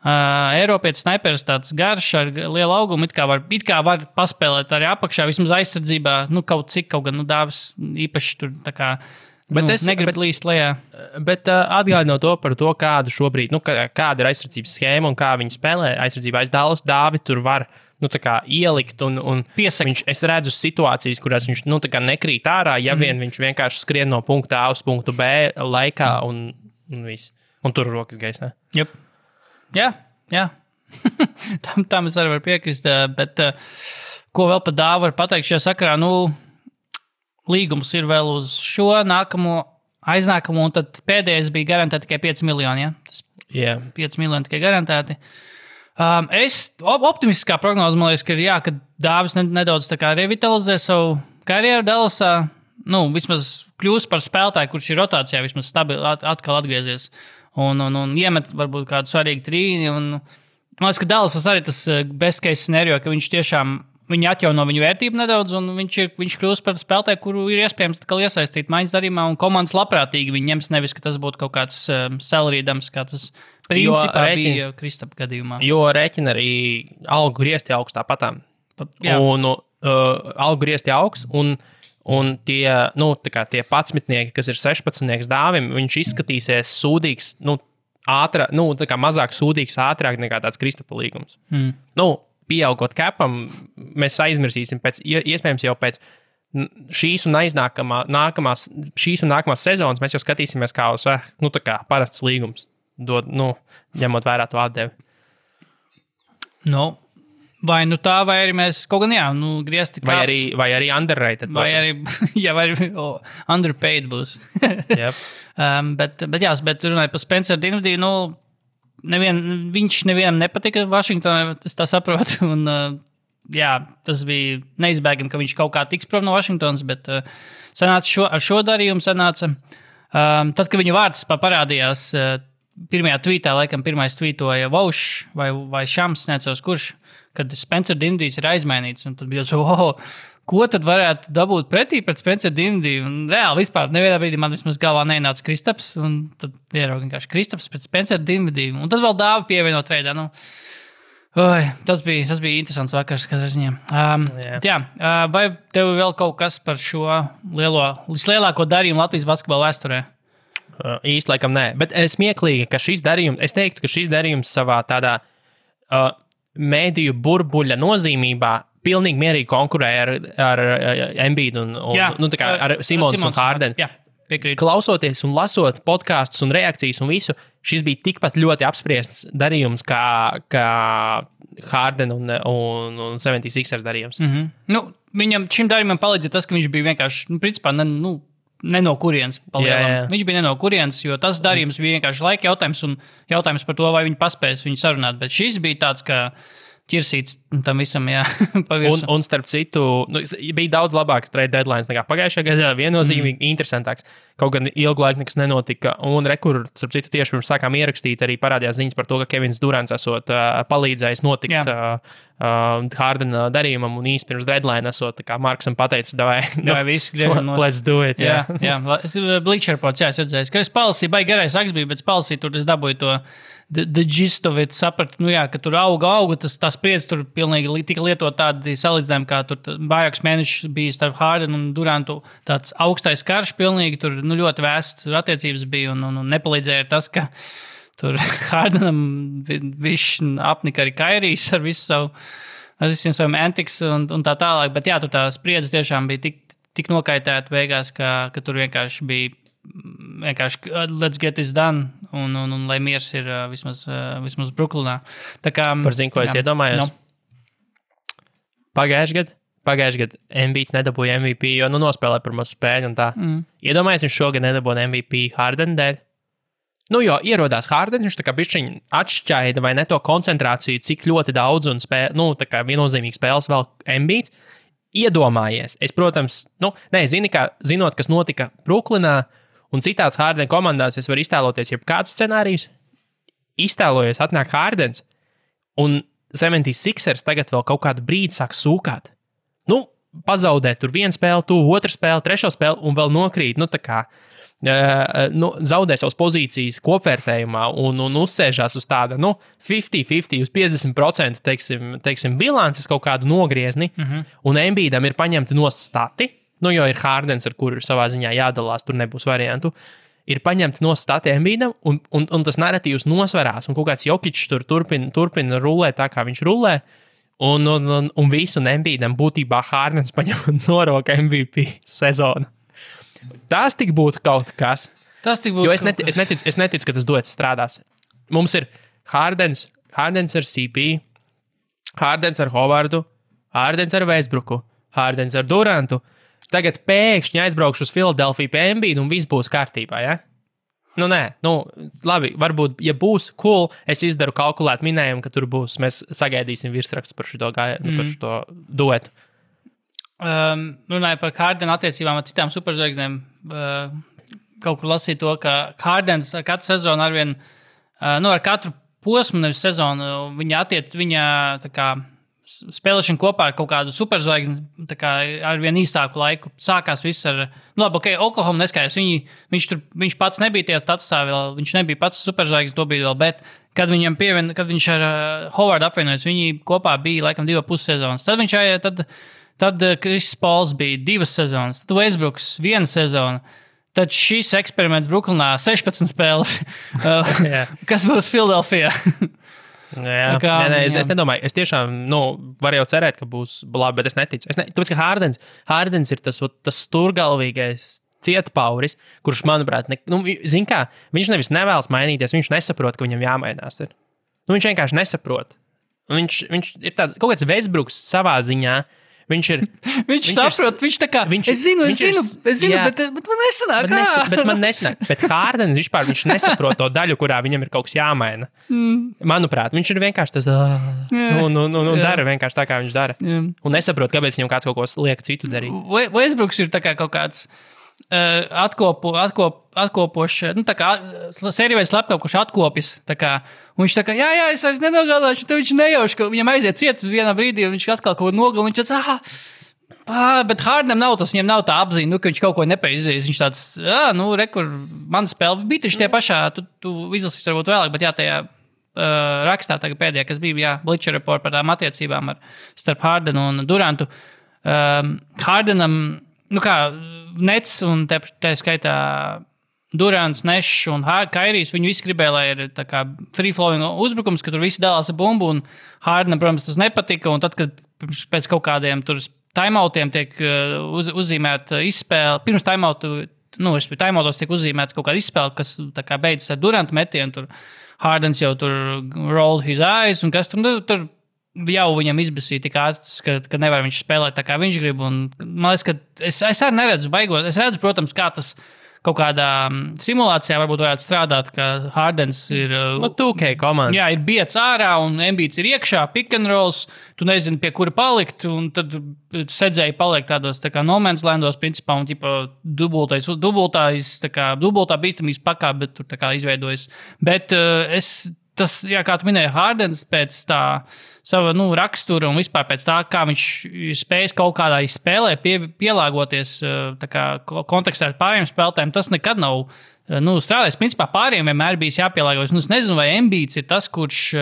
Eiropietis snaipers tāds garš ar lielu augumu, it kā var paspēlēt arī apakšā, vismaz aizsardzībā, kaut gan Dāvis īpaši tur tā kā negrib līst lejā. Bet atgādinot to par to, kāda šobrīd, kāda ir aizsardzības schēma un kā viņi spēlē aizsardzībā aiz Dallas, Dāvi tur var ielikt un piesakt. Es redzu situācijas, kurās viņš nekrīt ārā, ja vien viņš vienkārši skrien no punkta A uz punktu B laikā un viss. Un tur rokas gaisā. Yep. Jā. tam es arī varu piekrist, bet ko vēl par Dāvu var pateikt šajā sakarā, līgums ir vēl uz šo aiznākamo, un tad pēdējais bija garantēti tikai 5 miljoni, ja? Tas 5 miljoni tikai garantēti. Es optimistiskā prognoze, man liekas, ka Dāvis nedaudz tā kā revitalizē savu karjeru Dallasā, vismaz kļūst par spēlētāju, kurš ir rotācijā, vismaz stabili atkal atgriezies un iemet varbūt kādu svarīgu trīni, un man liekas, ka Dallasas arī tas best case scenario, ka viņš tiešām viņi atjauno viņu vērtību nedaudz, un viņš kļūst par spēlētāju, kuru ir iespējams iesaistīt maiņas darījumā, un komandas labprātīgi viņi ņems, nevis, ka tas būtu kaut kāds salary dumps, kā tas principā bija Kristapa gadījumā. Jo rēķina arī algu griezti augstā patām. Un algu griezti augsts, un tie, tie 11, kas ir 16 Dāvim, viņš izskatīsies sūdīgs, mazāk sūdīgs ātrāk nekā tāds Kristapa līgums. Pieaugot capam, mēs aizmirsīsim iespējams jau pēc šīs un nākamās sezonas, mēs jau skatīsimies kā uz, parasts līgums, ņemot vērā to atdevi. Vai tā, vai arī mēs kaut gan, griezti kāds. Vai arī underrated. Vai arī underpaid būs. Yep. Bet runājot par Spencer Dinwiddie, viņš nevienam nepatika Vašingtonā, es tā saprotu, un tas bija neizbēgami, ka viņš kaut kā tiks prom no Vašingtonas, bet ar šo darījumu sanāca. Tad, kad viņa vārds parādījās pirmajā tweetā, laikam pirmais tweetoja Vaušs vai Šams, neatceros kurš, kad Spencer Dinwiddie ir aizmainīts, un tad bija ko tad varētu dabūt pretī pret Spencer Dinwiddie? Un reāli vispār nevienā brīdī man vismaz galvā neienāca Kristaps, un tad ierauga vienkārši Kristaps pret Spencer Dinwiddie. Un tad vēl Dāvi pievieno treidā. Tas bija interesants vakars, katrā ziņā. Vai tev vēl kaut kas par šo vislielāko darījumu Latvijas basketbola vēsturē? Īsti laikam nē, bet smieklīgi, ka šis darījums savā tādā mēdīju burbuļa nozīmībā pilnīgi mierīgi konkurēja ar Embiidu ar Simons un Hardenu. Klausoties un lasot podkastus un reakcijas un visu, šis bija tikpat ļoti apspriests darījums kā Harden un 76ers darījums. Viņam šim darījumam palīdzēja tas, ka viņš bija vienkārši, principā, ne no kurienes palielam. Viņš bija ne no kurienes, jo tas darījums bija vienkārši laika jautājums un jautājums par to, vai viņi paspēs viņu sarunāt. Bet šis bija tāds, ka ķirsīts tam visam, pavirsu. Un starp citu, bija daudz labāks trade deadlines nekā pagājušajā gadā, viennozīmīgi interesantāks. Kaut gan ilgu laiku nekas nenotika. Un starp citu, tieši pirms sākām ierakstīt, arī parādījās ziņas par to, ka Kevins Durants esot palīdzējis notikt Hardena darījumam un īsti pirms deadline esot, kā Marksam pateicis, visi griežam nos. Let's do it. Jā. Bleacher Reports, es redzēju, ka es palasīju, baigi garais saks bija, bet palasīju, tur es dabūju to the gist of it, sapratu, ka tur auga, tā spriedze tur pilnīgi tika lietot tādi salīdzinājumi, kā tur vairākus mēnešus bija starp Hardenu un Durantu tāds augstais karš pilnīgi, tur ļoti vēsts attiecības bija un nepalīdzēja tas, ka tur Hardenam viņš apnika arī Kairijs ar visu savu ar visiem saviem antics un tā tālāk, bet jā, tur tā spriedze tiešām bija tik nokaitēta beigās, ka tur vienkārši bija let's get this done, un lai miers ir vismaz Brooklynā. Tā kā, Par zinu, ko es iedomājos. Pagājuši gadu Embiids nedabūja MVP, jo nospēlēja pirmo spēļu un tā. Iedomājies, viņš šogad nedabūja MVP Harden dēļ. Jo ierodās Hardens, viņš tā kā bišķiņ atšķaida vai ne to koncentrāciju, cik ļoti daudz un tā kā viennozīmīgi spēles vēl Embiids. Iedomājies. Es, protams, zinot, kas notika Brooklynā un citās Harden komandās, es varu iztēloties jebkādus scenārijus. Iztēlojies, atnāk Hardens un 76ers tagad vēl kaut kādu brīdi sāk sūkāt. Pazaudē tur vienu spēli, otru spēli, trešo spēli un vēl nokrīt. Zaudē savas pozīcijas kopvērtējumā un uzsēžās uz tāda 50-50, uz 50% teiksim, bilances kaut kādu nogriezni. Un Embiidam ir paņemti no stati, jo ir Hardens, ar kuru savā ziņā jādalās, tur nebūs variantu. Ir paņemti no stati Embiidam un tas narratīvs nosverās. Un kaut kāds Jokičs tur turpina rulēt tā, kā viņš rulē. Un visu Embiidam būtībā Hardens paņem noroka MVP sezonu. Tas tik būtu kaut kas. Jo es neticu, ka tas duets strādās. Mums ir Hardens ar CP, Hardens ar Hovardu, Hardens ar Westbrooku, Hardens ar Durantu. Tagad pēkšņi aizbraukšu uz Filadelfiju pie Embiida un viss būs kārtībā, ja? Labi, varbūt, ja būs cool, es izdaru kalkulēt minējumu, ka tur būs, mēs sagaidīsim virsrakstu par šo duetu. Runāju par Hardenu attiecībām ar citām superzvaigznēm. Kaut kur lasīju to, ka Hardens ar katru sezonu arvien, ar katru posmu, nevis sezonu, viņa tā kā spēlēšana kopā ar kaut kādu superzvaigzni, tā kā ar vien īsāku laiku. Sākās viss ar, Oklahoma neskājās, viņš pats nebija tajā statusā vēl, viņš nebija pats superzvaigznes, to bija vēl, bet kad viņš ar Hovardu apvienojas, viņi kopā bija laikam 2,5 sezonas. Tad Chris Pauls bija 2 sezonas, tad Westbrooks 1 sezona. Tad šis eksperiments Brooklynā 16 spēles, kas būs Filadelfijā. Es nedomāju. Es tiešām varu jau cerēt, ka būs labi, bet es neticu. Tāpēc, ka Hardens ir tas sturgalvīgais cietpauris, kurš, manuprāt, viņš nevis nevēlas mainīties, viņš nesaprot, ka viņam jāmainās. Viņš vienkārši nesaprot. Viņš ir tāds, kaut kāds Westbrooks savā ziņā. Viņš saprot, viņš tā kā, es zinu, bet man nesanāk. Bet man nesanāk. Bet Hardens vispār, viņš nesaprot to daļu, kurā viņam ir kaut kas jāmaina. Manuprāt, viņš ir vienkārši tas, dara vienkārši tā, kā viņš dara. Un nesaprot, kāpēc viņam kāds kaut ko liek citu darīt. Westbrooks ir tā kā kaut kāds atkopošs, tā kā sērijveids slepkavs, kurš atkopjas, tā kā, un viņš tā kā, jā, es vairs nenogādāšu, tad viņš nejauš, ka viņam aiziet ciet uz vienā brīdī, un viņš atkal kaut ko nogal, un viņš tāds, bet Hardenam nav tas, viņam nav tā apziņa, ka viņš kaut ko nepaizdarīs, viņš tāds, rekur, mana spēle bija taču tie pašā, tu izlasīs varbūt vēlāk, bet jā, tajā rakstā tagad pēdējā, kas bija, Bleacher Report par tām attiecībām starp Hardenu un Durantu, Hardenam, Nets un tā skaitā Durants, Nešs un Kairijs, viņi visi gribēja, lai ir tā kā free-flowing uzbrukums, ka tur visi dalās ar bumbu, un Hardenam, protams, tas nepatika, un tad, kad pēc kaut kādiem tur timeoutiem tiek uzzīmēta izspēle, pirms timeoutos tiek uzzīmēta kaut kāda izspēle, kas tā kā beidzas ar Durantu metienu, tur Hardens jau tur rolled his eyes, un kas tur jau viņam izbasīja tik ātrs, ka nevar viņš spēlēt tā, kā viņš grib. Un, man liekas, ka es arī neredzu baigot. Es redzu, protams, kā tas kaut kādā simulācijā varbūt varētu strādāt, ka Hardens ir... 2K komanda. Jā, ir biets ārā un Embiids ir iekšā, pick and rolls, tu nezini, pie kura palikt, un tad sedzēji paliek tādos tā kā no man's landos, principā, un dubultā bīstamības pakā, bet tur tā kā izveidojas. Bet tas, jā, kā tu minēji, Hardens pēc tā sava rakstura un vispār pēc tā, kā viņš spējas kaut kādā spēlē pielāgoties tā kā kontekstā ar pārējiem spēlētājiem, tas nekad nav strādājis. Principā pārējiem vienmēr bijis jāpielāgojas. Es nezinu, vai Embiids ir tas, kurš,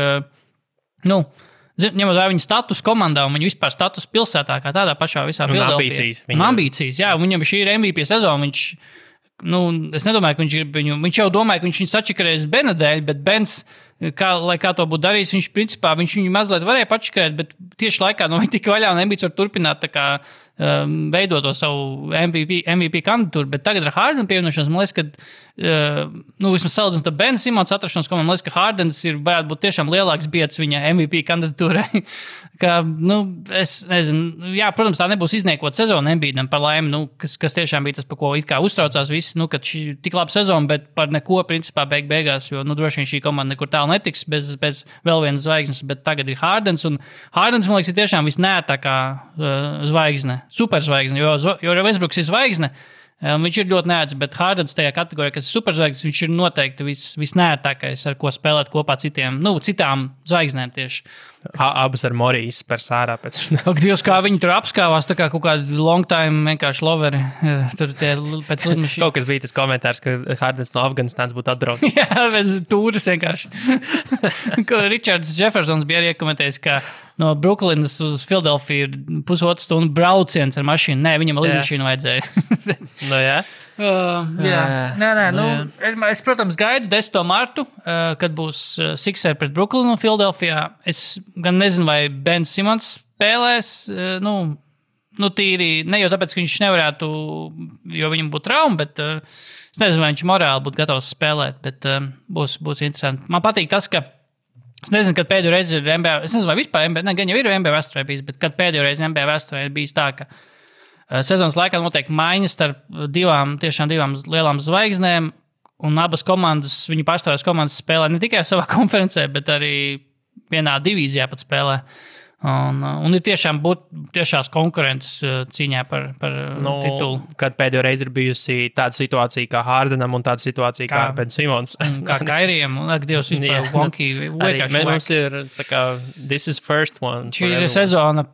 ņemot vērā viņa status komandā un viņa vispār status pilsētā, kā tādā pašā visā Filadelfijā. Ambīcijas, jā, viņam šī ir MVP sezona, es nedomāju, ka viņš jau domāja, ka viņš sačakarēs Bena dēļ, bet Bens kā to būtu darījis. Viņš principā viņu mazliet varēja pačakēt, bet tieši laikā no viņa tika vaļā un Embiids var turpināt tā kā veidot to savu MVP kandidatūru, bet tagad ar Hardenu pievienošanos, man liekas, ka, vismaz salīdzinot ar Ben Simons atrašanos, man liekas, ka Hardens varētu būt tiešām lielāks biedrs viņa MVP kandidatūrai. Es nezinu, jā, protams, tā nebūs izniekot sezonu Embiidam par laimi, kas tiešām bija tas, par ko it kā uztraucās visi, kad šī tik laba sezona, bet par neko principā beigās, jo, droši vien šī komanda nekur tālu netiks bez vēl vienas zvaigznes, bet tagad ir Hardens, un Hardens, man liekas, ir tiešām visnērtākā zvaigzne. Superzvaigzne, jo Westbrooks ir zvaigzne, viņš ir ļoti neēdz, bet Hardens tajā kategorijā, kas ir superzvaigznes, viņš ir noteikti visnērtākais, ar ko spēlēt kopā citām zvaigznēm tieši. Abas ar Moriju izspēr sārā pēc. Ak, Dievs, kā viņi tur apskāvās, tā kā kaut kādi long time vienkārši loveri. Tur tie pēc lidmašīnas. Kaut kas bija tas komentārs, ka Hardens no Afganistānas būtu atbraucis. Jā, pēc tūras vienkārši. Richards Jeffersons bija arī iekomentējis, ka no Brooklynas uz Philadelphia ir 1,5 stundu brauciens ar mašīnu. Nē, viņam lidmašīnu vajadzēja. Jā. Es, protams, gaidu 10. martu, kad būs Sixers pret Brooklynu un Philadelphia. Es gan nezinu, vai Ben Simons spēlēs, tīri, ne jau tāpēc, ka viņš nevarētu, jo viņam būtu trauma, bet es nezinu, vai viņš morāli būtu gatavs spēlēt, bet būs interesanti. Man patīk tas, ka es nezinu, kad pēdējo reizi ir NBA, es nezinu, vai vispār NBA, gan jau ir NBA vēsturē bijis, bet kad pēdējo reizi NBA vēsturē ir bijis tā, ka sezonas laikā notiek maiņas starp divām lielām zvaigznēm, un abas komandas, viņu pārstāvjās komandas spēlē ne tikai savā konferencē, bet arī vienā divīzijā pat spēlē. Un ir tiešās konkurences cīņā par titulu. Kad pēdējo reizi ir bijusi tāda situācija kā Hardenam un tāda situācija kā Ben Simons. Kā Kairijam, un Dievs vispār wonky. Mums ir tā kā this is first one. Šī ir sezona,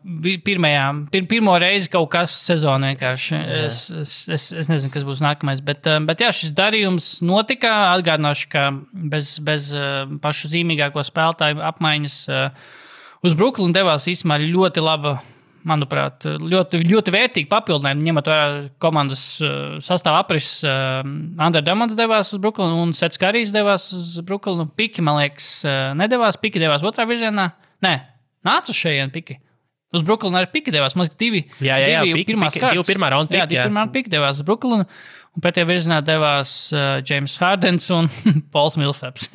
pirmo reizi kaut kas sezona vienkārši. Es nezinu, kas būs nākamais, bet jā, šis darījums notika. Atgādināšu, ka bez pašu zīmīgāko spēlētāju apmaiņas uz Brooklynu devās īstenībā ļoti laba, manuprāt, ļoti vērtīgi papildinājumi, ņemot vērā komandas sastāvu aprises. Andre Drummond devās uz Brooklynu un Sets Karijs devās uz Brooklynu. Piki, man liekas, nedevās. Piki devās otrā virzienā. Nē, nāca uz šejien Piki. Uz Brooklynu arī Piki devās. Man liekas, divi pirmā raunda Piki. Divi pirmā Piki devās uz Brooklynu. Un pretējā virzienā devās James Hardens un Pauls Millsaps,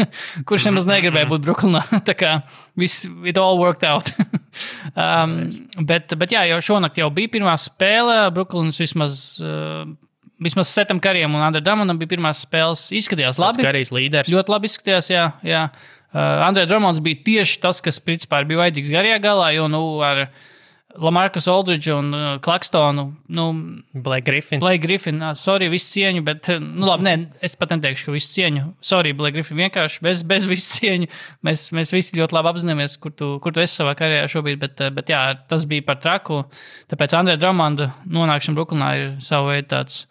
kurš nemaz negribēja būt Brooklynā. Tā kā it all worked out. Bet jā, jau šonakt jau bija pirmā spēle. Brooklynas vismaz Setam Karijam un Andre Drummondam bija pirmās spēles. Izskatījās labi. Sets Karijs līderis. Ļoti labi izskatījās, jā. Andre Drummonds bija tieši tas, kas principā bija vajadzīgs garajā galā, jo ar Lamarcus Aldridge un Claxtonu, Blake Griffin, sorry, visu cieņu, bet, labi, es pat neteikšu, ka visu cieņu. Sorry, Blake Griffin, vienkārši bez visu cieņu. Mēs visi ļoti labi apzināmies, kur tu esi savā karjerā šobrīd, bet jā, tas bija par traku. Tāpēc Andre Drummonda nonākšana Brooklynā ir savu veidu tāds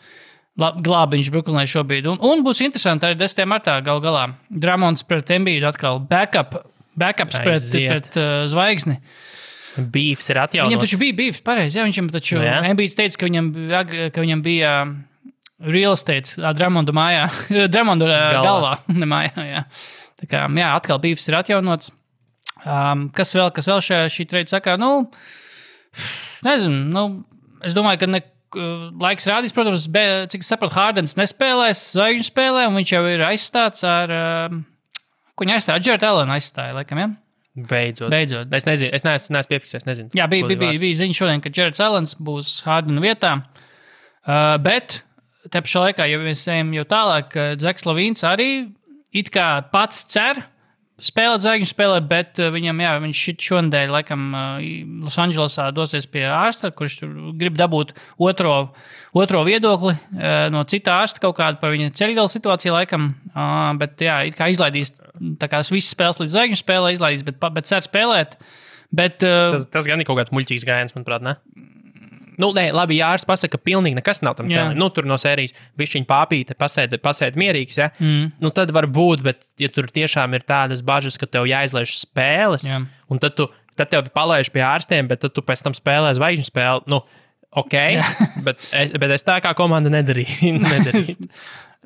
glābiņš Brooklynai šobrīd. Un būs interesanti arī 10. martā galā. Drummonds pret Embiidu atkal backups pret zvaigzni. Beefs ir atjaunots. Viņam taču bija beefs, pareizi. Jā, viņam taču Embiids teica, ka viņam bija real estate Drummonda mājā. Drummonda galvā, ne mājā, jā. Tā kā, jā, atkal beefs ir atjaunots. Kas vēl šī trade sakarā? Nezinu, es domāju, ka laiks rādīs, protams, cik es sapratu, Hardens nespēlēs zvaigžņu spēlē, un viņš jau ir aizstāts ar, ko viņa aizstāja? Jared Allen aizstāja, laikam, jā? Beidzot. Es nezinu, es neesmu piefiksējis, nezinu. Jā, bija ziņa šodien, ka Jared Allen būs Hardena vietā, bet te pašā laikā, ja mēs ejam jau tālāk, Zeks Lavīns arī it kā pats cer spēlēt zvaigžņu spēlē, bet viņš šonadēļ laikam Losandželosā dosies pie ārsta, kurš grib dabūt otro viedokli no cita ārsta kaut kādu par viņa ceļgala situāciju laikam, bet jā, it kā izlaidīs tā kā visas spēles līdz zvaigžņu spēlē izlaidīs, bet cer spēlēt. Bet, tas gan ir kaut kāds muļķīgs gājiens, manuprāt, ne? Nē, labi, ja ārsts pasaka, ka pilnīgi nekas nav tam cēlim. Tur no sērijas bišķiņ pāpīte, pasēd mierīgs, ja? Tad var būt, bet ja tur tiešām ir tādas bažas, ka tev jāizlaiž spēles, un tad tev palaiž pie ārstiem, bet tad tu pēc tam spēlē zvaigžņu spēli, ok, bet es tā kā komanda nedarītu.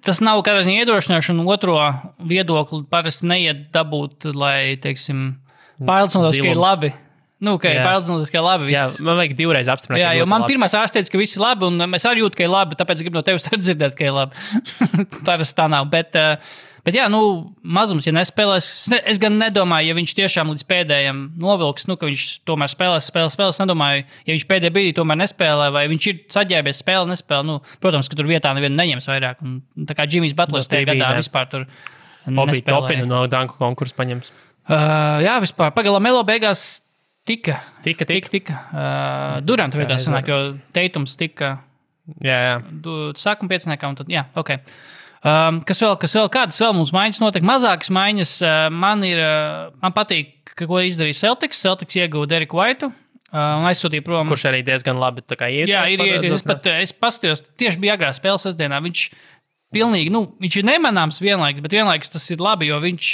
Tas nav kādā ziņā iedrošināšana, un otro viedokli parasti neiet dabūt, lai, teiksim, pārliecinātos, ka ir labi. Ka ir pārliecinātos, ka ir labi. Jā, man vajag divreiz apstiprināt. Jā, jo man pirmais ārsts teica, ka viss ir labi, un es arī jūtu, ka ir labi, tāpēc gribu no tevis dzirdēt, ka ir labi. Parasti tā nav, bet jā, mazums, ja nespēlēs, es gan nedomāju, ja viņš tiešām līdz pēdējiem novilks, ka viņš tomēr spēlēs, es nedomāju, ja viņš pēdējā brīdī tomēr nespēlē, vai viņš ir saģērbies nespēlē, protams, ka tur vietā nevienu neņems vairāk, un tā kā Jimmys Butlers tajā gadā vispār tur nespēlēja. Obi Topinu no danku konkursu paņems. Jā, vispār, pagaidām Melo beigās tika. Durant vietā sanāk, jo Teitums tika sākuma pieciniekā, un tad, ok. Kas vēl? Kādas vēl mums maiņas notiek? Mazākas maiņas. Man patīk, ko izdarīja Celtics. Celtics ieguva Deriku Whiteu un aizsūtīja prom. Kurš arī diezgan labi iet. Jā, es paskatījos, tieši bija agrā spēles sestdienā. Viņš pilnīgi, viņš ir nemanāms vienlaikus tas ir labi, jo viņš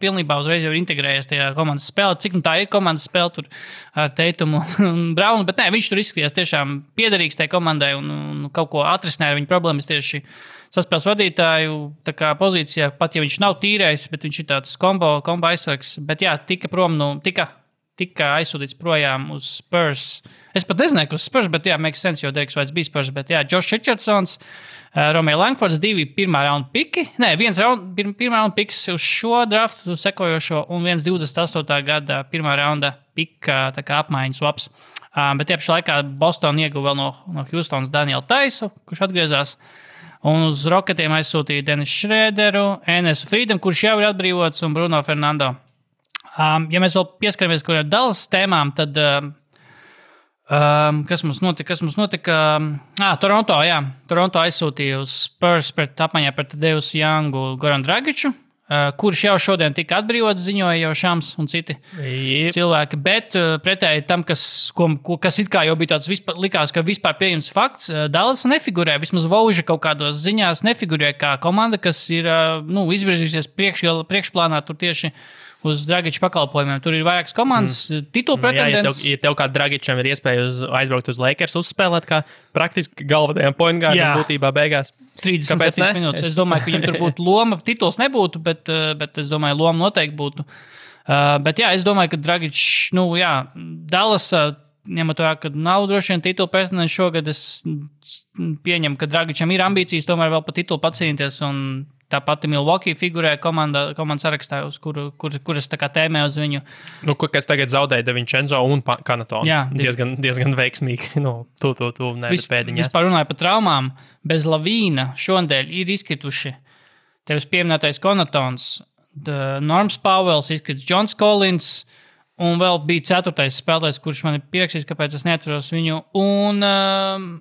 pilnībā uzreiz jau ir integrējies tajā komandas spēlē. Cik tā ir komandas spēle tur ar Teitumu un Braunu, bet viņš tur izskatījās tiešām piederīgs tajā komandai un kaut ko atrisināja ar viņu problēmas tieši saspēles vadītāju pozīcijā, pat ja viņš nav tīrējis, bet viņš ir tāds kombo aizsargs. Bet jā, tika aizsūtīts projām uz Spurs. Es pat nezināju, ka uz Spurs, bet jā, makes sense, jo Deriks Whites bija Spurs. Bet jā, Josh Richardsons, Romeo Langfords, 2 pirmā raunda piki. Nē, pirmā raunda piks uz šo draftu sekojošo un 28. gada pirmā raunda pika apmaiņas swaps. Bet tie pašā laikā Boston ieguva vēl no Houstonas Danielu Taisu, kurš atgriezās. Un uz Rocketiem aizsūtīja Denisu Šrēderu, Enesu Friedam, kurš jau ir atbrīvots, un Bruno Fernando. Ja mēs vēl pieskaramies ar Dallas tēmām, tad kas mums notika? Toronto, jā. Toronto aizsūtīja uz Spurs apmaiņā pret Deus Youngu Goran Dragiču, kurš jau šodien tika atbrīvots, ziņoja jau Šams un citi cilvēki. Bet pretēji tam, kas it kā jau bija tāds likās, ka vispār pieejams fakts, Dallas nefigurē, vismaz Vauža kaut kādos ziņās nefigurē kā komanda, kas ir izvirzījusies priekšplānā tur tieši uz Dragiča pakalpojumiem. Tur ir vairākas komandas, titulu pretendents. Ja tev kā Dragičam ir iespēja aizbraukt uz Lakers uzspēlēt, kā praktiski galvenajam point guardam būtībā beigās. 37 minūtes. Es domāju, ka viņam tur būtu loma. Tituls nebūtu, bet es domāju, loma noteikti būtu. Bet jā, es domāju, ka Dragič, Dallas, ņemot vērā, ka nav droši vien titulu pretendents šogad, es pieņemu, ka Dragičam ir ambīcijas tomēr vēl pa titulu pacīnīties, un tā pati Milwaukee figurē komandas sarakstā, uz kuras tā kā tēmē uz viņu. Kas tagad zaudēja De Vincenzo un Kanatonu. Jā. Diezgan veiksmīgi. Tu nepēdiņā. Vispār runāju par traumām. Bez Lavīna šodien ir izkrituši tevis pieminētais Konatons, Norms Pauwels, izkrits Johns Collins, un vēl bija 4. spēlētājs, kurš man ir pierakstījis, kāpēc es neatceros viņu. Un,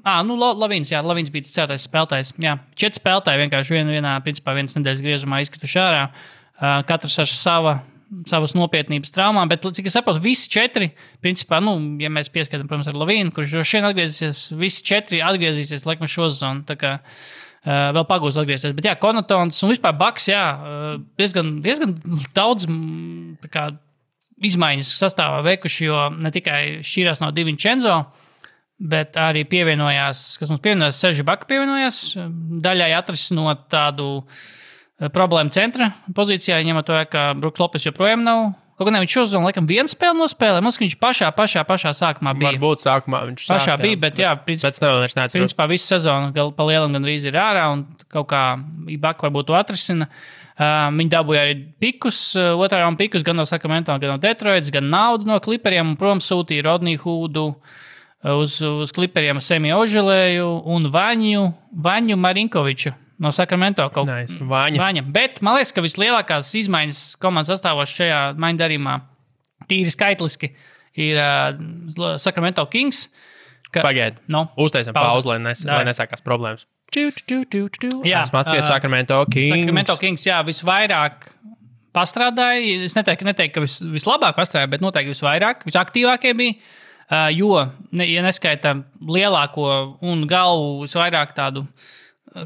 Lavīns, jā, Lavīns bija 4. spēlētājs. Jā, 4 spēlētāji vienkārši vienas nedēļas griezumā izkrituši ārā. Katrs ar savas nopietnības traumām, bet, cik es saprotu, visi 4, principā, ja mēs pieskatām, protams, ar Lavīnu, kurš droši vien atgriezīsies, visi 4 atgriezīsies, laikam, šo sezonu. Tā kā vēl pagūs atgriezties. Bet jā, Konatons un vispār Baks, jā, diezgan daudz izmaiņas sastāvā veikuši, jo ne tikai šķīrās no Di Vincenzo, bet arī pievienojās, Serži Baka pievienojās, daļai atrisinot tādu problēmu centra pozīcijā, ņemot vērā, ka Bruks Lopes joprojām nav. Kaut gan viņš šozonu, laikam, vienu spēli nospēlē, man viņš pašā sākumā bija. Varbūt sākumā viņš pašā bija, bet jā, principā visu sezonu pa lielam gandrīz ir ārā, un kaut kā Baka varbūt to atrisina. Viņi dabūja arī pikus, otrā raunda pikus, gan no Sacramento, gan no Detroitas, gan naudu no Clipperiem, un prom sūtīja Rodniju Hoodu uz Clipperiem Semi Oželēju un Vaņu Marinkoviču no Sacramento. Vaņa. Bet man liekas, ka vislielākās izmaiņas komandas sastāvos šajā maiņu darījumā tīri skaitliski ir Sacramento Kings. Pagaid, uztaisam pauzi, lai nesākās problēmas. Jā, Sacramento Kings. Sacramento Kings, jā, visvairāk pastrādāja. Es neteiktu, ka vislabāk pastrādāja, bet noteikti visvairāk, visaktīvākie bija. Jo, ja neskaita lielāko un galvu visvairāk tādu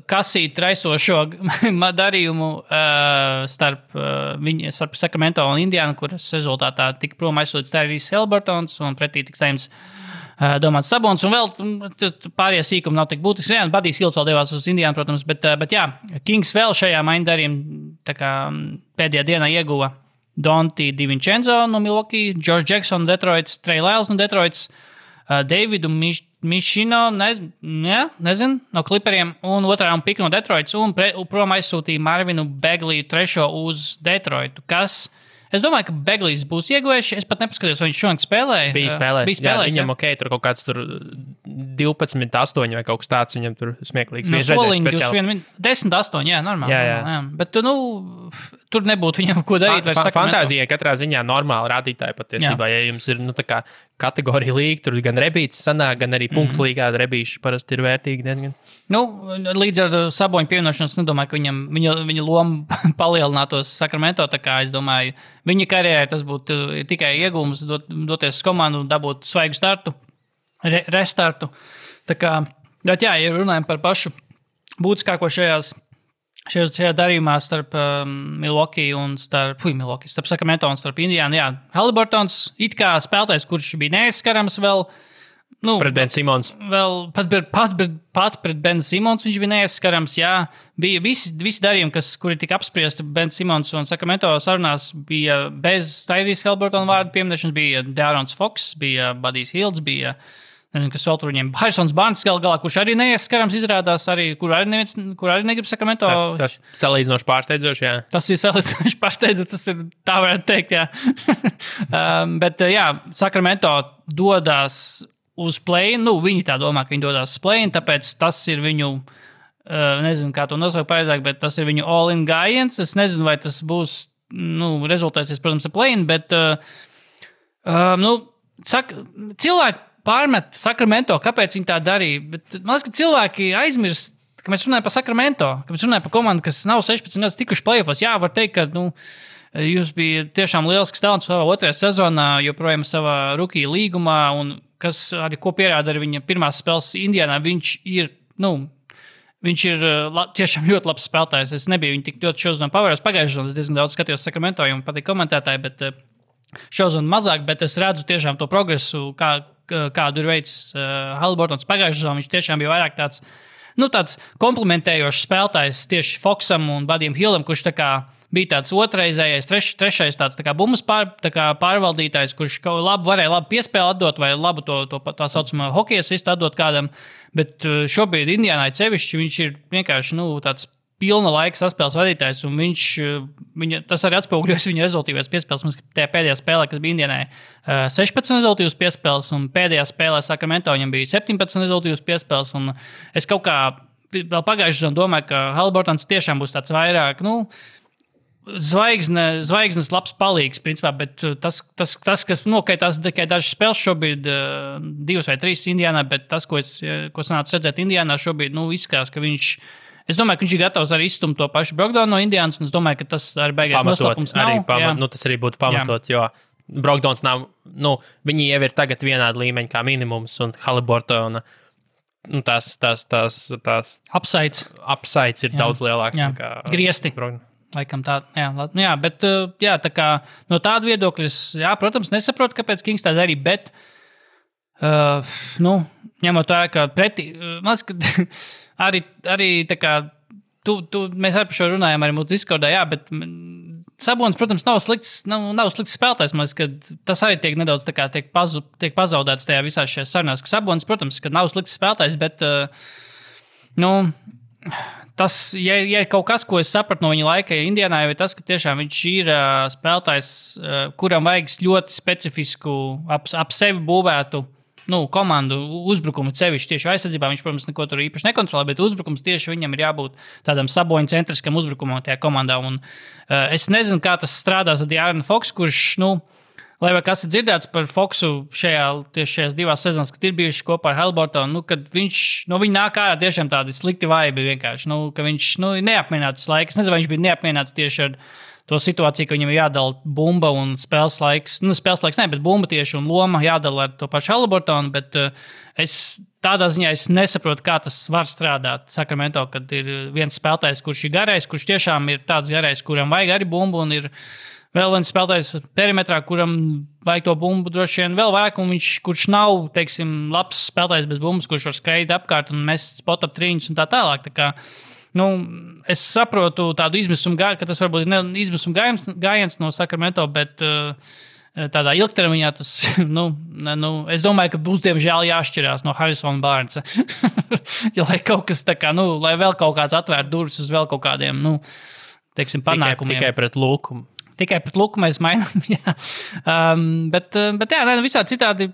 kasīt raisošo darījumu starp Sacramento un Indiānu, kuras rezultātā tika prom aizsūtīts Tyrese Haliburtons un pretī tiks saimts Domāts Sabons, un vēl pārējie sīkumi nav tik būtiski. Jā, Badijs Hilds vēl devās uz Indiānu, protams, bet jā, Kings vēl šajā maiņdarījumā pēdējā dienā ieguva Donti DiVincenzo no Milwaukee, George Jackson no Detroits, Trey Lyles no Detroits, Davidu Mišino, nezinu, no Clipperiem, un otrā piku no Detroits, un prom aizsūtīja Marvinu Begliju trešo uz Detroitu, kas... Es domāju, ka Beglijs būs ieguvējis. Es pat nepaskatījos, vai viņš šodien spēlēja. Bija spēlējis. Viņam tur kaut kāds 12-8 vai kaut kas tāds. Viņam tur smieklīgs. No soliņa 10-8, jā, normāli. Jā. Bet, tur nebūtu viņam ko darīt. Fantāzijai katrā ziņā normāli rādītāji patiesībā. Ja jums ir, tā kā kategorija līga, tur gan rebīts sanāk, gan arī punktu līgā rebīši parasti ir vērtīgi diezgan. Līdz ar Saboņu pievienošanos, nedomāju, ka viņa loma palielinātos Sacramento, tā kā es domāju, viņa karjerai tas būtu tikai iegūms doties uz komandu un dabūt svaigu startu, restartu. Tā kā, bet jā, ja runājam par pašu būtiskāko šajā darījumā starp Milwaukee un starp Sacramento un starp Indiānu, jā, Haliburtons it kā spēlētājs, kurš bija neaizskarams vēl, pret Ben Simons. Vēl pat pret Ben Simons viņš bija neaizskarams, jā. Bija visi darījumi, kuri tika apspriesti Ben Simons un Sacramento sarunās, bija bez Tyrese Haliburtona vārdu pieminēšanas, bija De'Aaron Fox, bija Budijs Hilds, bija, kas vēl tur viņiem, Harrisons Barnes galā, kurš arī neaizskarams izrādās, kur arī negrib Sacramento. Tas salīdzinoši pārsteidzoši, jā. Tas ir salīdzinoši pārsteidzoši, tas ir tā varētu teikt, jā. Bet, jā, Sacramento dodās uz play-in, viņi tā domā, ka viņi dodās uz play-in, tāpēc tas ir viņu, nezinu, kā to nosaukt pareizāk, bet tas ir viņu all-in gājiens. Es nezinu, vai tas būs, rezultēsies, protams, ar play-in, bet, cilvēki pārmet Sacramento, kāpēc viņi tā darīja, bet man liekas, ka cilvēki aizmirst, ka mēs runājam par Sacramento, ka mēs runājam par komandu, kas nav 16 gadus tikuši play-offos. Jā, var teikt, ka, jūs bija tiešām lielisks talants savā otrajā sezonā, joprojām savā rookie līgumā, un kas arī ko pierāda ar viņa pirmās spēles Indiānā, viņš ir tiešām ļoti labs spēlētājs. Es nebiju viņu tik ļoti šodien pavērus pagājušajā sezonā, es diezgan daudz skatījos Sacramento, jo man patīk komentētāji, bet šodien mazāk, bet es redzu tiešām to progresu, kādu ir veids Haliburtons pagājušajā sezonā. Viņš tiešām bija vairāk tāds komplementējošs spēlētājs tieši Foxam un Budijam Hildam, kurš bija tāds otrreizējais, trešais tāds bumbas pārvaldītājs, kurš varēja labu piespēli atdot vai labu tā saucamā hokeja asistu atdot kādam, bet šobrīd Indiānai sevišķi viņš ir vienkārši tāds pilna laika saspēles vadītājs, un tas arī atspoguļojas viņa rezultīvās piespēles. Mums tajā pēdējā spēlē, kas bija Indiānai, 16 rezultīvas piespēles, un pēdējā spēlē Sacramento viņam bija 17 rezultīvas piespēles, un es kaut kā vēl pagājušajā sezonā domāju, ka Haliburtons tiešām būs tāds vairāk, zvaigznes labs palīgs, principā, bet tas kas nokaitās tikai dažas spēles šobrīd, 2 vai 3 Indiānā, bet tas, ko sanāca redzēt Indiānā šobrīd, izskatās, ka es domāju, ka viņš ir gatavs arī izstumt to pašu Brogdonu no Indiānas, un es domāju, ka tas arī beigās noslēpums nav. Tas arī būtu pamatot, jo Brogdons nav, viņi jau ir tagad vienāda līmeņa kā minimums, un Haliburtona, tās upsides ir daudz lielāks nekā griesti. Laikam tā, jā, bet tā kā no tāda viedokļa, protams, nesaprotu, kāpēc Kings tā darīja, bet, ņemot tā, ka pretī, man liekas, ka arī tā kā, mēs arī par šo runājām arī mūsu Discordā, jā, bet Sabonis, protams, nav slikts spēlētājs, man liekas, ka tas arī tiek nedaudz tā kā tiek pazaudēts tajā visās šajās sarunās, ka Sabonis, protams, ka nav slikts spēlētājs, bet, tas, ja ir kaut kas, ko es sapratu no viņa laika Indiānā, ir tas, ka tiešām viņš ir spēlētājs, kuram vajag ļoti specifisku, ap sevi būvētu komandu uzbrukumu sevišķi tieši aizsardzībā. Viņš, protams, neko tur īpaši nekontrolē, bet uzbrukums tieši viņam ir jābūt tādam Saboņa centriskam uzbrukumam tajā komandā. Un, es nezinu, kā tas strādās ar De'Aaron Fox, kurš, lai vai kas ir dzirdēts par Foxu šajās 2 sezonās, kad ir bijuši kopā ar Haliburtonu, kad viņa nāk ārā tiešām tādi slikti vaibi vienkārši, ka viņš ir neapmierināts laiks. Es nezinu, vai viņš bija neapmierināts tieši ar to situāciju, ka viņam ir jādala bumba un spēles laiks. Spēles laiks ne, bet bumba tieši un loma jādala ar to pašu Haliburtonu, bet tādā ziņā es nesaprotu, kā tas var strādāt Sacramento, kad ir viens spēlētājs, kurš ir garais, kurš tiešām ir tāds garais, kuram vajag arī bumbu un ir vēl viens spēlētājs perimetrā, kuram vajag to bumbu droši vien vēl vairāk, un kurš nav, teiksim, labs spēlētājs bez bumbas, kurš var skraidīt apkārt un mest spot-up trīņus un tā tālāk. Tā kā, es saprotu tādu izmisumu gājienu, ka tas varbūt ir izmisuma gājiens no Sacramento, bet tādā ilgtermiņā tas, es domāju, ka būs diemžēl jāšķirās no Harrisona Barnesa. Lai kaut kas tā kā, lai vēl kaut kāds atvērtu durvis uz vēl kaut kādiem, teiksim, panākumiem. Tikai pret Luku. Tikai pret Luku mēs mainām, jā. Bet jā, visādi citādi,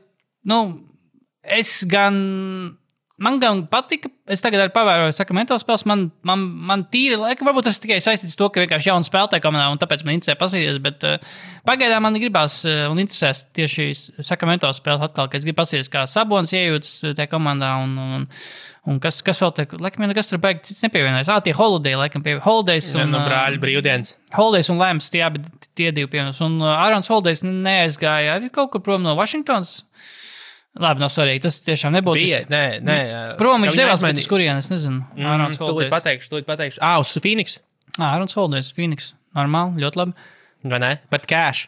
man gan patika, es tagad arī pavēroju Sacramento spēles, man tīri laika, varbūt tas tikai saistīts to, ka vienkārši jauna spēlētāja komandā, un tāpēc man interesē pasīties, bet pagaidām man gribās un interesēs tieši Sacramento spēles atkal, ka es gribu pasīties, kā Sabonis iejūtas tajā komandā, un kas vēl te, laikam, nekas tur baigi cits nepievienojas. Tie Holiday, laikam, Holidays un... brāļi brīvdienas. Holidays un Lambs, tie divi pievienojas, un Ārons Holidays neaizgāja arī kaut kur prom no Washingtons. Labi, nav svarīgi. Tas tiešām nebūtu. Nē. Prom viņš devās, bet uz kurien, es nezinu. Tūlīt pateikšu. Uz Phoenix. Ārons Holidays, Phoenix. Normāli, ļoti labi. Vai ne? Bet cash.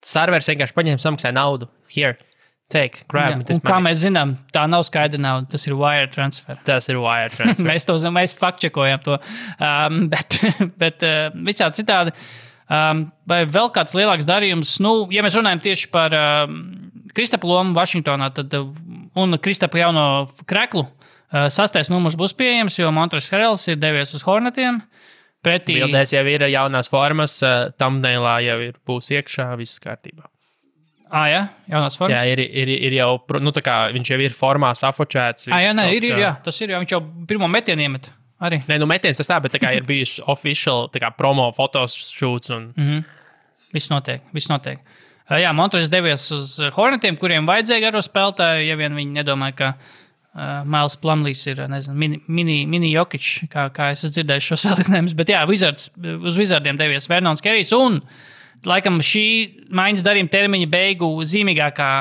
Servers vienkārši paņēma samaksāja naudu. Here. Take, grab. Un kā mēs zinām, tā nav skaidra nauda. Tas ir wire transfer. Mēs faktčekojam to. Bet visādi citādi. Vai vēl kāds lielāks darījums? Ja mēs runājam tieši par Kristapa lomu Vašingtonā un Kristapa jauno kreklu, 6. numurs būs pieejams, jo Montrezl Harrells ir devies uz Hornetiem. Bildēs jau ir jaunās formas, thumbnailā jau būs iekšā, viss kārtībā. Jā, jaunās formas? Jā, ir jau, tā kā viņš jau ir formā safočēts. Jā, tas ir, viņš jau pirmo metienu iemet. Arī. Nē, metiens tas tā, bet tā kā ir bijuši official promo fotoshoots un... Viss notiek. Jā, Montrezls devies uz Hornetiem, kuriem vajadzēja garo spēlētāju, ja vien viņi nedomāja, ka Miles Plumlees ir, mini Jokic, kā es dzirdēju šo salīdzinājumus, bet jā, uz Wizardiem devies Vernons Kerijs, un laikam šī maiņas darījuma termiņa beigu zīmīgākā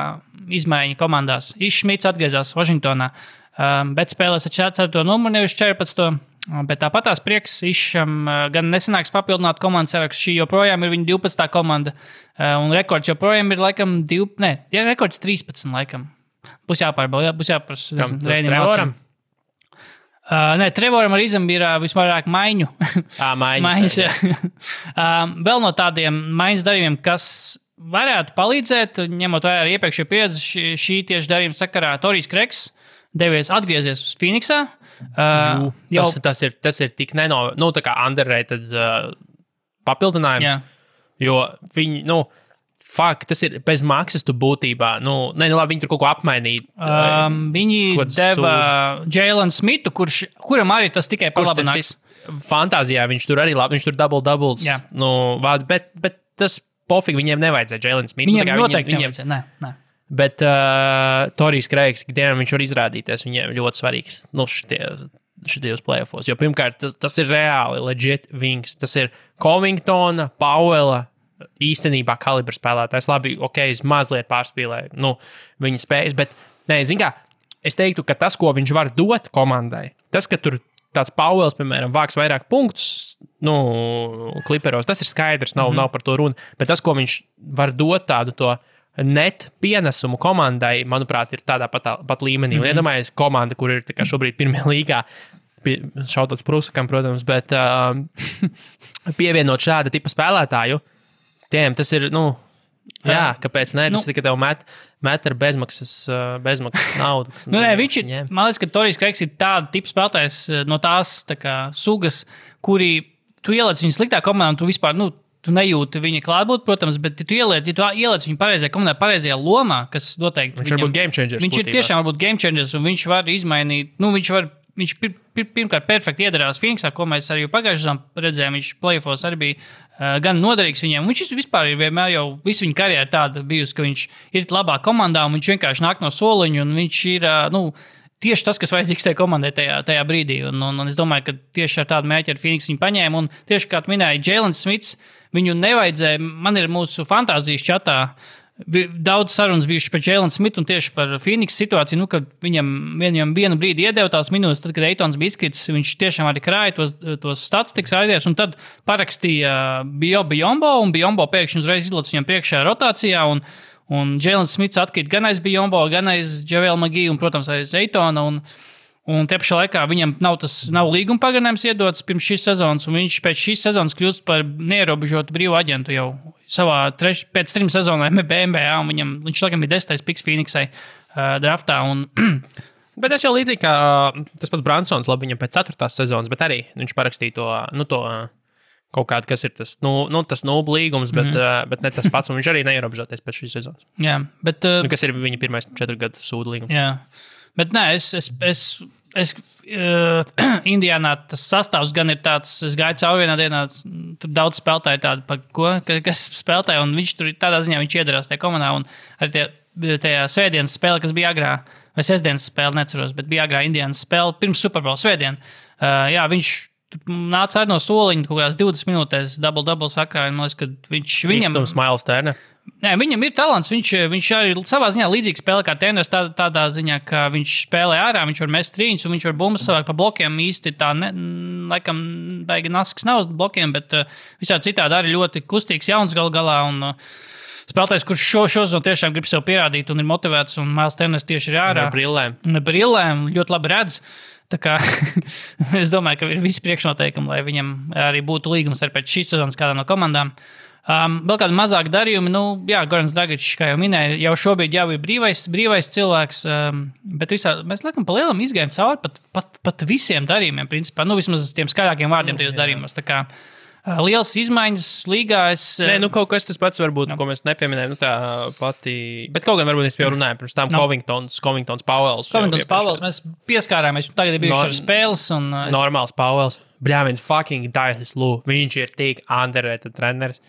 izmaiņa komandās. Šmits atgriezās Vašingtonā, bet spēlēs ar 4. numuru, nevis 14. Bet tāpat tās prieks Išam gan nesanāks papildināt komandas sarakstu. Šī joprojām ir viņa 12. komanda. Un rekords joprojām ir laikam rekords 13 laikam. Būs jāpārbauda, būs jāprasa Trevoram? Trevoram ar Izam ir visvairāk maiņu. Maiņas. Vēl no tādiem maiņas darījumiem, kas varētu palīdzēt, ņemot vērā ar iepriekšējo pieredzi, šī tieši darījuma sakarā Torijs Kreks atgriezies uz Phoenixā. Tas ir tik tā kā underrated papildinājums, jo viņi, tas ir bez maksas tu būtībā, labi, viņi tur kaut ko apmainīt. Viņi deva Jalen Smithu, kuram arī tas tikai palabinājums. Fantāzijā viņš tur arī labi, viņš tur doubles, vāc, bet tas pofīgi viņiem nevajadzēja Jalen Smithu. Viņiem noteikti nevajadzēja, nē. Bet Torijs Kreigs, ikdienam viņš var izrādīties, viņiem ļoti svarīgs šitajos playoffos. Jo pirmkārt, tas ir reāli legit wings. Tas ir Covingtona, Powella īstenībā kalibra spēlētājs. Labi, es mazliet pārspīlēju viņa spējas, bet es teiktu, ka tas, ko viņš var dot komandai, tas, ka tur tāds Powells, piemēram, vāks vairāk punktus, kliperos, tas ir skaidrs, nav par to runa, bet tas, ko viņš var dot tādu to net pienesumu komandai, manuprāt, ir tādā pat līmenī. Un iedomājies komanda, kur ir šobrīd pirmajā līgā, šautot Prusakam, protams, bet pievienot šāda tipa spēlētāju, tiem tas ir, kāpēc ne? Tas tikai tev met ar bezmaksas naudu. Viņš ir, man liekas, ka Torijs Kreigs ir tāda tipa spēlētājs no tās sugas, kuri tu ieliec viņu sliktā komandā, un tu vispār, tu nejūti viņa klātbūt, protams, bet tu ieliec viņu pareizajā komandā, pareizajā lomā, kas noteikti... Viņš var būt game changers. Viņš ir tiešām varbūt game changers, un viņš var izmainīt, viņš pirmkārt perfekti iedarās Phoenixā, ko mēs arī pagājušajā redzējām, viņš playoffos arī bija gan noderīgs viņiem. Viņš vispār ir vienmēr jau visu viņa karjeru tāda bijusi, ka viņš ir labā komandā, un viņš vienkārši nāk no soliņa, un viņš ir, tieši tas, kas vajadzīgs tajā komandai tajā brīdī. Un es domāju, ka tieši ar tādu mērķi ar Phoenix viņu paņēma, un tieši kā tu minēji, Jalen Smits, viņu nevajadzēja, man ir mūsu fantāzijas čatā, daudz sarunas bijušas par Jalen Smithu un tieši par Phoenix situāciju, kad viņam vienu brīdi iedeva tās minūtes, tad, kad Eitons bija izkritis, viņš tiešām arī krāja tos statistikas raidies, un tad parakstīja Biyombo, un Biyombo pēkšņi uzreiz izlac viņam priekšā rotācijā, un Jalen Smiths atkrīt gan aiz Biyombo, gan aiz Javel McGee, un, protams, aiz Eitona, un tie pašā laikā viņam nav līguma pagarinājums iedots pirms šīs sezonas, un viņš pēc šīs sezonas kļūst par neierobežotu brīvu aģentu jau pēc 3 sezonām NBA, un viņš tagad bija 10. piks Phoenixai draftā. Bet es jau līdzīgi kā tas pats Bransons, labi, viņam pēc 4. sezonas, bet arī viņš parakstīja to kaut kādu, kas ir tas, tas nulbu līgums, bet ne tas pats, un viņš arī neierobežoties pēc šīs sezonas. Jā, bet... kas ir viņa pirmais 4 gadu sūdu līgums. Jā, bet nē, es Indiānā tas sastāvs gan ir tāds, es gāju cauri vienā dienā, tur daudz spēlētāju tādu, kas spēlētāju, un viņš tur tādā ziņā viņš iedarās tajā komandā, un arī tajā svētdienas spēle, kas bija agrā, vai sestdienas spēle, neceros, bet bija agrā Indiānas spēle, pirms Super Bowl svētdien. Jā, viņš nāca arī no soliņa, kaut kādās 20 minūtēs, double sakrāja, man liekas, ka viņam... Īstums Miles Turner. Nē, viņam ir talants, viņš arī savā ziņā līdzīgi spēlē kā treneris tādā ziņā, ka viņš spēlē ārā, viņš var mest trīņus un viņš var bumbas savāk pa blokiem īsti tā, laikam, baigi nasks nav uz blokiem, bet visā citādi arī ļoti kustīgs jauns galā un spēlētājs, kurš šo zonu tiešām grib sev pierādīt un ir motivēts un Miles Turner tieši ir ārā. Ar brillēm, ļoti labi redz. Tā kā es domāju, ka ir visi priekšnoteikumi, lai viņam arī būtu līgums ar pēc šīs sezonas kādām no komandām. Vēl kādi mazāki darījumi, Gorans Dragičs, kā jau minēju, jau šobrīd jau ir brīvais cilvēks, bet mēs laikam pa lielam izgājam cauri pat visiem darījumiem, principā, vismaz tiem skaļākiem vārdiem tajos darījumos. Tā kā liels izmaiņas līgā. Kaut kas tas pats varbūt, ko mēs nepieminējam, tā pati, bet kaut gan varbūt es jau runāju pirms tam Covingtons Powells. Mēs pieskārāmies, tagad ir bijuši ar spēles. Normāls Powells. Bļāviens fucking Dailis Lou. Viņš ir tik underrated treneris.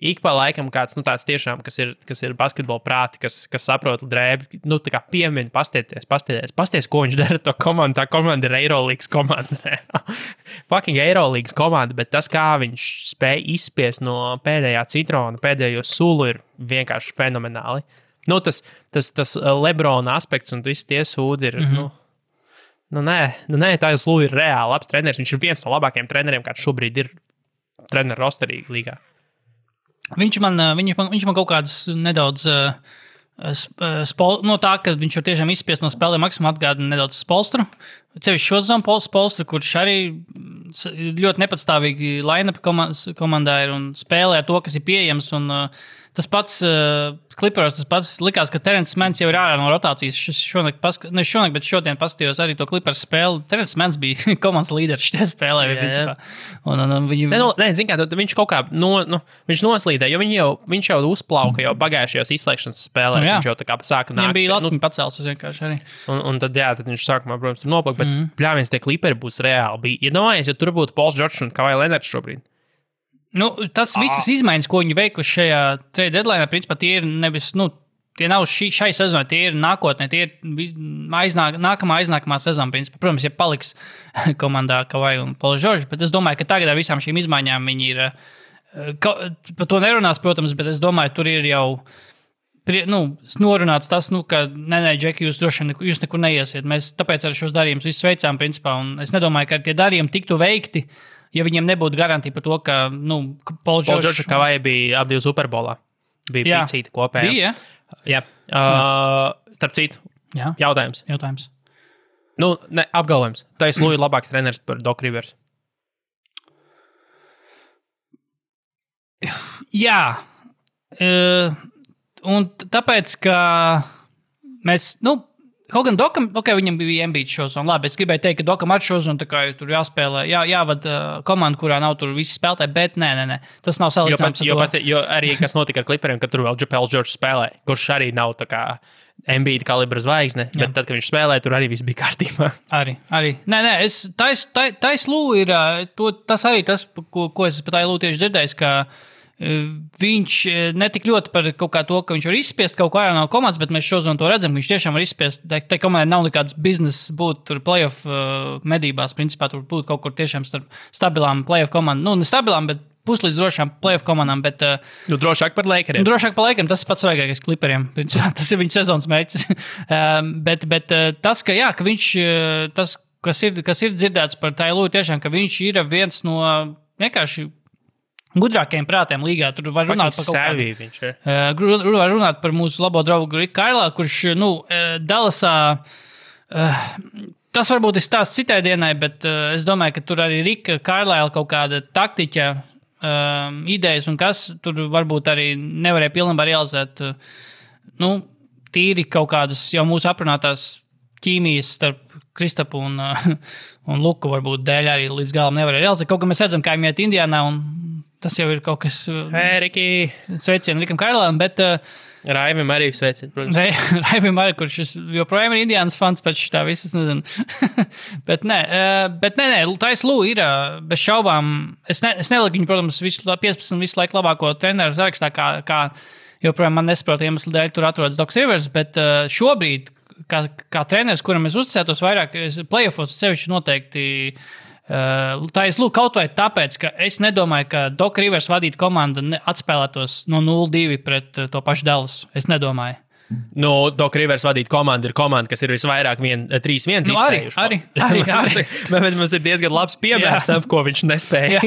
Ik pa laikam kāds, tāds tiešām, kas ir basketbola prāti, kas saprot drēbi, tā kā piemin, pasties, ko viņš dara to komandu. Tā komanda ir Eirolīgas komanda. Fucking Eirolīgas komanda, bet tas, kā viņš spēja izspiest no pēdējā citrona, pēdējo sulu, ir vienkārši fenomenāli. Tas Lebrona aspekts un visi tie sūdi ir, nē, tā jau ir reāli labs treneris. Viņš ir viens no labākajiem treneriem, kāds šobrīd ir treneru rosterī līgā. Viņš man kaut kādas nedaudz tā, ka viņš var tiešām izspiest no spēlēm maksimum atgādina nedaudz Spolstru. Cevišķi šo zonu Spolstru, kurš arī ļoti nepatstāvīgi line-up komandā ir un spēlē to, kas ir pieejams. Un tas pats Clippers, tas pats likās, ka Terence Manns jau ir ārā no rotācijas. Bet šodien paskatījos arī to Clippers spēli. Terence Manns bija komandas līderis šajā spēlē. Viņš kaut kā viņš noslīdē, jo viņš jau uzplauka jau pagājušajās izslēgšanas spēlēs. Viņš jau tā kā sāka nākt. Viņam bija latiņa pacēls vienkārši arī. Un tad viņš sākumā, protams, tur noplaka, bet pļāviens tie Clipperi būs reāli. Iedomājies, ja tur būtu Pauls Džordžs un Kawhi Leonards šobrīd. Tas visas izmaiņas, ko viņi veikuši šajā trade deadline, principā tie ir nevis, tie nav šai sezonai, tie ir nākotnē, tie ir nākamā sezona, principā. Protams, ja paliks komandā Kawhi un Pauls Džordžs, bet es domāju, ka tagad ar visām šīm izmaiņām viņi ir, par to nerunās, protams, bet es domāju, tur ir jau norunāts tas, ka nē, Džeki, jūs nekur neiesiet. Mēs tāpēc ar šos darījumus visus veicām, principā, un es nedomāju, ka tie darījumi tiktu veikti, ja viņiem nebūtu garantija par to, ka, Pauls Džordžs un Kawhi bija abi Super Bowlā. Bija picīti kopējā. Bija, jā. Starp citu, jautājums. Apgalvojums. Tais Lou ir labāks treneris par Doc Rivers. Jā. Un tāpēc, ka mēs, kaut gan Dokam, viņam bija Embiid šozonu. Labi, es gribēju teikt, ka Dokam ar šozonu tā kā tur jāspēlē, jāvada komanda, kurā nav tur visi spēlētāji, bet nē. Tas nav salīdzināms ar to. Jo arī, kas notika ar Clipperiem, kad tur vēl Pauls Džordžs spēlē, kurš arī nav tā kā Embiid kalibra zvaigzne, bet tad, kad viņš spēlē, tur arī viss bija kārtībā. Arī. Nē, Tais Lū ir, tas arī tas, ko es pat Lū tieši dzirdējis, ka viņš netik ļoti par kaut kā to, ka viņš var izspiest kaut ko ārā no komandas, bet mēs šodien to redzam, ka viņš tiešām var izspiest. Tai komandai nav nekāds bizness būt tur playoff medībās, principā tur būt kaut kur tiešām starp stabilām playoff komandām. Ne stabilām, bet puslīdz drošām playoff komandām, bet... Drošāk par Lakeriem. Drošāk par Lakeriem, tas ir pats svarīgākais Clipperiem. Tas ir viņa sezonas mērķis. bet tas, ka, jā, ka viņš, tas, kas ir dzirdēts par Tailu, tiešām, ka viņš ir viens no vienkārši gudrākajiem prātiem līgā. Tur var runāt par kaut var runāt par mūsu labo draugu Riku Kailā, kurš, Dallasā... Tas varbūt ir stāsts citai dienai, bet es domāju, ka tur arī Rika Carlisle kaut kāda taktiķa idejas un kas tur varbūt arī nevarēja pilnībā realizēt. Tīri kaut kādas jau mūsu aprunātās ķīmijas starp Kristapu un Luku varbūt dēļ arī līdz galam nevarēja realizēt. Kaut kā mēs redzam, kā viņi iet Indiānā, un tas jau ir kaut kas... Riki! Sveicien Rikam Carlisle'am, bet... Raivim arī sveicien, protams. Raivim arī, kurš joprojām ir Indiānas fans pēc šitā visas, nezinu. bet nē, Tais Lū ir bez šaubām. Es neliku viņu, protams, 15 visu laiku labāko treneru sarakstā, kā joprojām man nesaprot iemeslu dēļ tur atrodas Docs Rivers, bet šobrīd, kā treneris, kuram es uzticētos vairāk, playoffos sevišķi noteikti Tais Lū kaut vai tāpēc, ka es nedomāju, ka Doc Rivers vadītu komandu atspēlētos no 0-2 pret to pašu Dallas. Es nedomāju. Doc Rivers vadīt komandu ir komanda, kas ir visvairāk 3-1 izcējuši. Arī. Bet mums ir diezgan labs piemērs tam, ko viņš nespēja.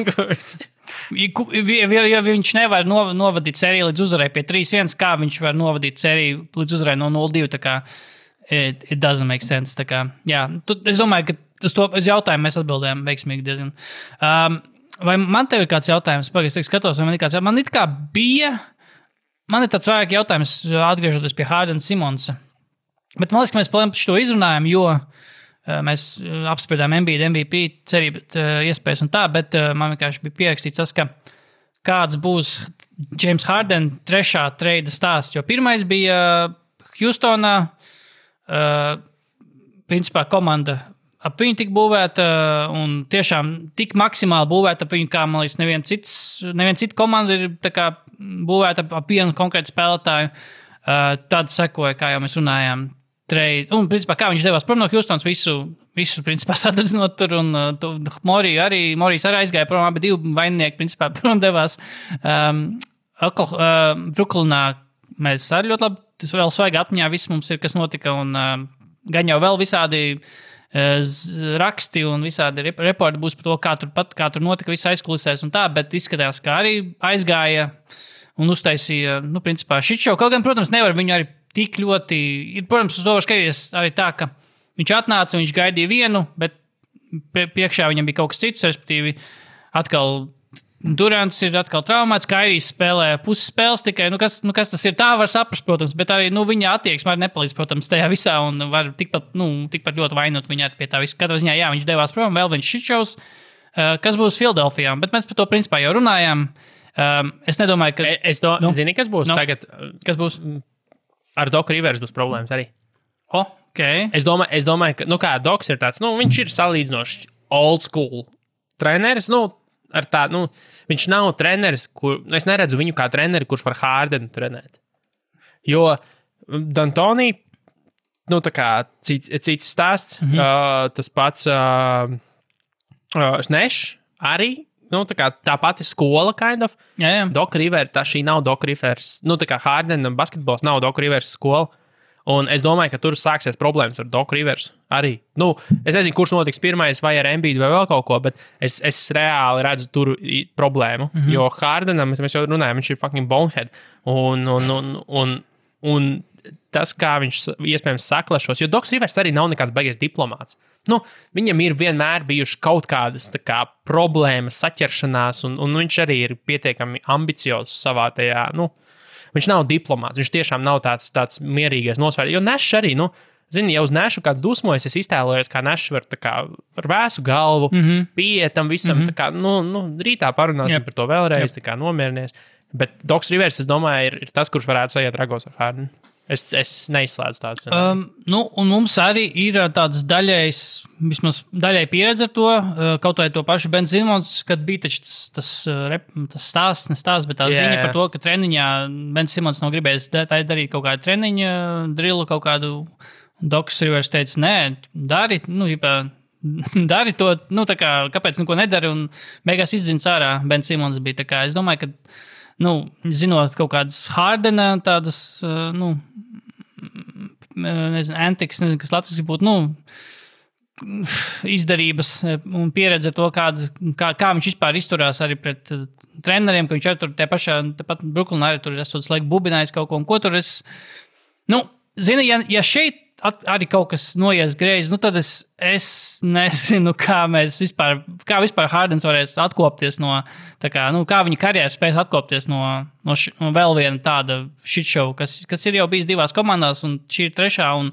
Ja viņš nevar novadīt sēriju līdz uzvarai pie 3-1, kā viņš var novadīt sēriju līdz uzvarai no 0-2, tā kā it doesn't make sense. Tā kā, jā, es domāju, ka uz jautājumu mēs atbildējām veiksmīgi diezgan. Vai man tev ir kāds jautājums? Pagaidzi, es skatos, vai man ir kāds jautājums. Man it kā bija... Man ir tāds vairāk jautājums, atgriežoties pie Hardena Simonsa. Bet man liekas, ka mēs par šo izrunājam, jo mēs apspriedām Embiid MVP cerību iespējas un tā, bet man vienkārši bija pierakstīts tas, ka kāds būs James Harden trešā treida stāsts. Jo pirmais bija Houstonā, principā komanda ap viņu tik būvēta un tiešām tik maksimāli būvēta ap viņu, kā, man liekas, neviena cita komanda ir tā kā būvēta ap vienu konkrētu spēlētāju. Tad sekoja, kā jau mēs runājām, trade. Un, principā, kā viņš devās prom no Houstonas, visu principā, sadedzinot tur, un Morijs arī aizgāja prom, abi divi vaininieki, principā, prom devās. Bruklinā mēs arī ļoti labi, tas vēl svaigi atmiņā viss mums ir, kas notika, un gan jau vēl visādi raksti un visādi reporti būs par to, kā tur notika viss aizkulisēs un tā, bet izskatās, ka arī aizgāja un uztaisīja, principā, šitšau. Kaut gan, protams, nevar viņu arī tik ļoti, protams, uz to var skatīties arī tā, ka viņš atnāca, viņš gaidīja vienu, bet priekšā viņam bija kaut kas cits, respektīvi atkal Durants ir atkal traumēts, Kairijs spēlē puses spēles tikai, kas tas ir, tā var saprast, protams, bet arī, viņa attieksme arī nepalīdz, protams, tajā visā, un var tikpat ļoti vainot viņā pie tā visu. Katrā ziņā, jā, viņš devās prom, vēl viņš šitšaus, kas būs Filadelfijā, bet mēs par to principā jau runājām. Es nedomāju, ka... Zini, kas būs tagad? Kas būs? Ar Doc Rivers būs problēmas arī. Okay. Es domāju, ka, kā Docs ir tāds, viņš ir salīdzinoši old school treneris, ar tā, viņš nav treneris, es neredzu viņu kā treneri, kurš var Hardenu trenēt. Jo D'Antoni, tā kā cits stāsts, tas pats Nešs arī, tā pati skola, kind of. Jā. Doc Rivers, šī nav Doc Rivers, tā kā Hardena basketbols nav Doc Rivers skola. Un es domāju, ka tur sāksies problēmas ar Doc Rivers arī. Es nezinu, kurš notiks pirmais, vai ar Embiidu vai vēl kaut ko, bet es reāli redzu tur problēmu. Jo Hardenam, mēs jau runājam, viņš ir fucking bonehead. Un tas, kā viņš iespējams saklašos, jo Docs Rivers arī nav nekāds baigies diplomāts. Viņam ir vienmēr bijuši kaut kādas problēmas, saķeršanās, un viņš arī ir pietiekami ambiciozs savā tajā, viņš nav diplomāts, viņš tiešām nav tāds mierīgais nosvērts. Jo Nešs arī, ja uz Nešu kāds dusmojas, es iztēlojos, kā Nešs var ar vēsu galvu, pieiet tam visam, rītā parunāsim par to vēlreiz, nomierinies. Bet Docs Rivers, es domāju, ir tas, kurš varētu sajiet ragos ar Hardenu. Es neizslēdzu tādu. Un mums arī ir tāds vismaz daļai pieredze ar to, kaut vai to pašu Ben Simons, kad bija taču tas stāsts, bet tā ziņa par to, ka treniņā Ben Simons nav gribējis darīt kaut kādu treniņu, drillu kaut kādu. Docs Rivers teica, nē, dari, dari to, tā kā, kāpēc neko nedari, un beigās izdzins ārā. Ben Simons bija tā kā, es domāju, ka, zinot kaut kādas Hardena, tādas, antiks, nezinu, kas latviski būtu, izdarības un pieredze to, kā viņš vispār izturās arī pret treneriem, ka viņš arī tur tepat Brooklynā arī tur esot slēgt bubinājis kaut ko, un ko tur es, zini, ja šeit arī kaut kas noies greizi, tad es nezinu, kā vispār Hardens varēs atkopties no, kā viņa karjeras spēs atkopties no vēl viena tāda shitshow, kas ir jau bijis 2 komandās, un šī ir 3. Un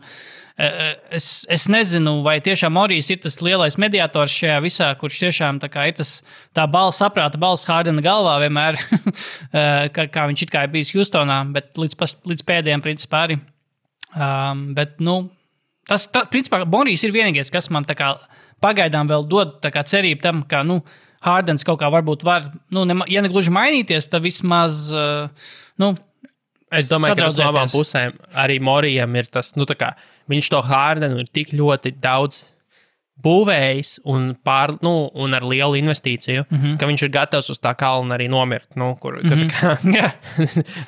es nezinu, vai tiešām Morijs ir tas lielais mediators šajā visā, kurš tiešām ir tā saprāta balss Hardena galvā vienmēr, kā viņš it kā ir bijis Houstonā, bet līdz pēdējiem principā arī. Bet, tas, principā, Morijs ir vienīgais, kas man pagaidām vēl dod cerību tam, ka, Hardens kaut kā varbūt var, ja ne gluži mainīties, tad vismaz, Es domāju, ka tas no abām pusēm arī Morijam ir tas, viņš to Hardenu ir tik ļoti daudz būvējis un ar lielu investīciju, ka viņš ir gatavs uz tā kalna arī nomirt.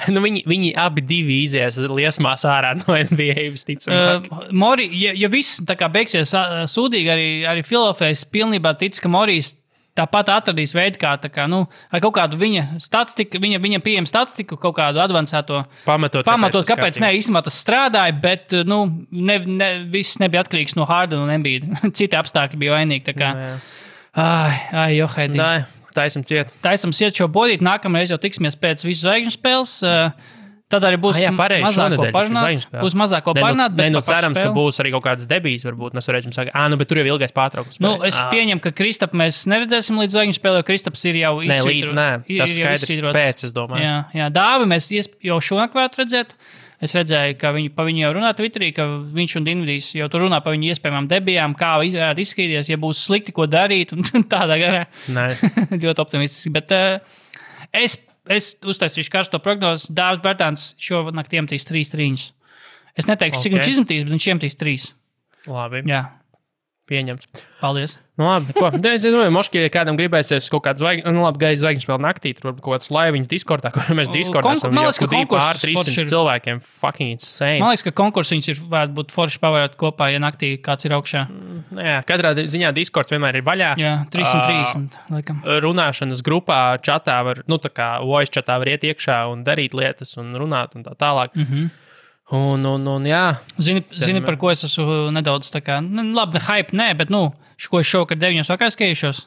Viņi abi divi izies liesmās ārā no NBA visticamāk. Mori, ja viss beigsies sūdīgi, arī Filadelfijas pilnībā tic, ka Morijs tāpat atradīs veidu, kā ar kaut kādu viņa statistiku, viņa pieejam statistiku, kaut kādu advancēto pamatot, kāpēc ne, īstenībā tas strādāja, bet, viss nebija atkarīgs no Hardena un Embiida. Citi apstākļi bija vainīgi, Johēdī. Taisim ciet. Taisim ciet šo bodīt, nākamreiz jau tiksimies pēc visu zvaigžņu spēles. Tad arī būs mazāko parunāt. Cerams, ka būs arī kaut kādas debijas, varbūt mēs varēsim sākt. Bet tur jau ilgais pārtraukums. Es pieņemu, ka Kristapu mēs neredzēsim līdz zvaigžņu spēlē, jo Kristaps ir jau izsvītrots. Tas skaidrs pēc, es domāju. Jā, Dāvi mēs jau šonakt varētu redzēt. Es redzēju, ka pa viņu jau runā Twitterī, ka viņš un Dinvidijs jau tur runā par viņu iespējamām debijām, kā varētu izskatīties, ja būs slikti, ko darīt, un tādā garā. Nice. Ļoti optimistiski, bet es uztaisīšu karsto prognozi. Dāvis Bērtāns šonakt iemetīs 3 trīņus. Es neteikšu, cik viņš izmetīs, bet viņš iemetīs 3. Labi. Jā. Pieņemts. Paldies. Labi, ko? Es domāju, moški, ja kādam gribēsies kaut kādu zvaigžņu spēli naktī, tur varbūt kaut kāds laiviņas Discordā, kur mēs Discordā esam jau pār 300 cilvēkiem. Fucking insane. Man liekas, ka konkursiņas varētu būt forši pavērāt kopā, ja naktī kāds ir augšā. Jā, katrā ziņā Discords vienmēr ir vaļā. Jā, 330, laikam. Runāšanas grupā, čatā var, voice čatā var iet iekšā un darīt lietas un runāt un tā tālāk. Un jā. Zini, par ko es esmu nedaudz labi, hype, nē, bet, ko es šovakar 9 vakarā skatīšos?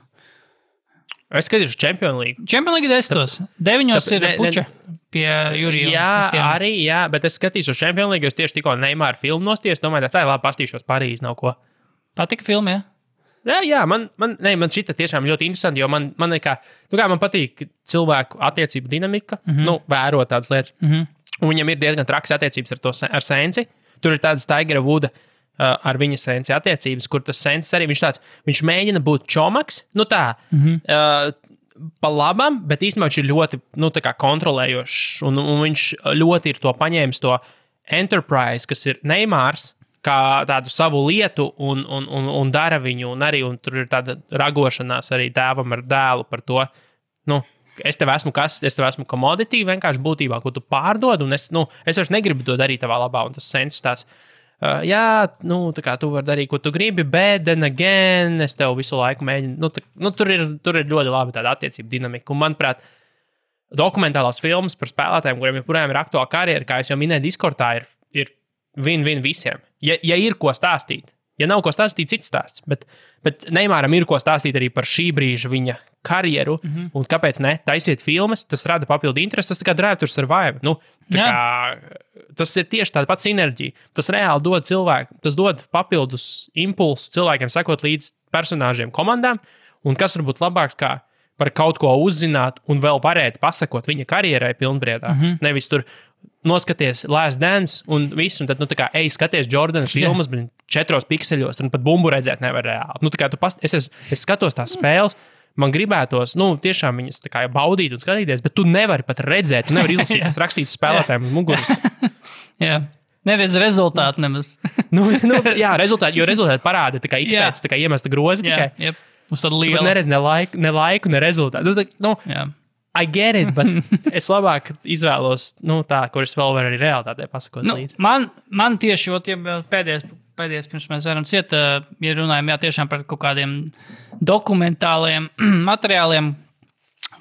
Es skatīšos Champions League. Champions League 10. 9 ir puča pie Jurija. Jā, bet es skatīšos Champions League, jo es tieši tikko Neymāra filmu nostījos, domāju, labi, pastīšos Parīzi, nav ko. Patika filma, jā? Jā, man šita tiešām ļoti interesanti, jo man patīk cilvēku attiecību dinamika, vērot tādas lietas. Un viņam ir diezgan trakas attiecības ar Sensi. Tur ir tādas Tigera Wooda ar viņa Sensi attiecības, kur tas Sensis arī viņš mēģina būt čomaks, pa labam, bet īstenībā viņš ir ļoti, kontrolējošs, un viņš ļoti ir to paņēmis to enterprise, kas ir Neymārs, kā tādu savu lietu, un dara viņu, un tur ir tāda ragošanās arī tēvam ar dēlu par to, es tev esmu commodity, vienkārši būtībā, ko tu pārdod, un es vairs negribu to darīt tavā labā, un tas Sensis tāds, tu vari darīt, ko tu gribi, bet then again, es tev visu laiku mēģinu, tur ir ļoti labi tāda attiecība dinamika, un manuprāt, dokumentālās filmas par spēlētājiem, kuriem joprojām ir aktuāla karjera, kā es jau minēju, Discordā ir win-win visiem, ja ir ko stāstīt. Ja nav ko stāstīt, cits stāsts. Bet Neymāram ir ko stāstīt arī par šī brīža viņa karjeru. Un kāpēc ne? Taisiet filmas, tas rada papildu interesi. Tas kā Drive to Survive. Tas ir tieši tāda pati sinerģija. Tas reāli dod cilvēku, tas dod papildus impulsu cilvēkiem sekot līdz personāžiem komandām. Un kas var būt labāks kā par kaut ko uzzināt un vēl varēt pasakot viņa karjerai pilnbriedā. Nevis tur noskaties Last Dance un viss, un tad, skaties Jordana filmas, bet 4 pikseļos, un pat bumbu redzēt nevar reāli. Es skatos tās spēles, man gribētos, tiešām viņas baudīt un skatīties, bet tu nevari pat redzēt, tu nevari izlasīt, kas rakstīts spēlētājiem uz muguras. Jā. Neredz rezultātu nemaz. Jā, rezultāti parāda, tā kā ikpēc, tā kā iemesta grozi tikai. Jā, uz tādu lielu. Tu neredz ne laiku, ne rezultātu. Jā. I get it, bet es labāk izvēlos, tā, kuras vēl var arī realitātē pasakot līdzi. Man tieši, pēdējais pirms mēs varam ciet, ja runājam, tiešām par kaut kādiem dokumentāliem materiāliem,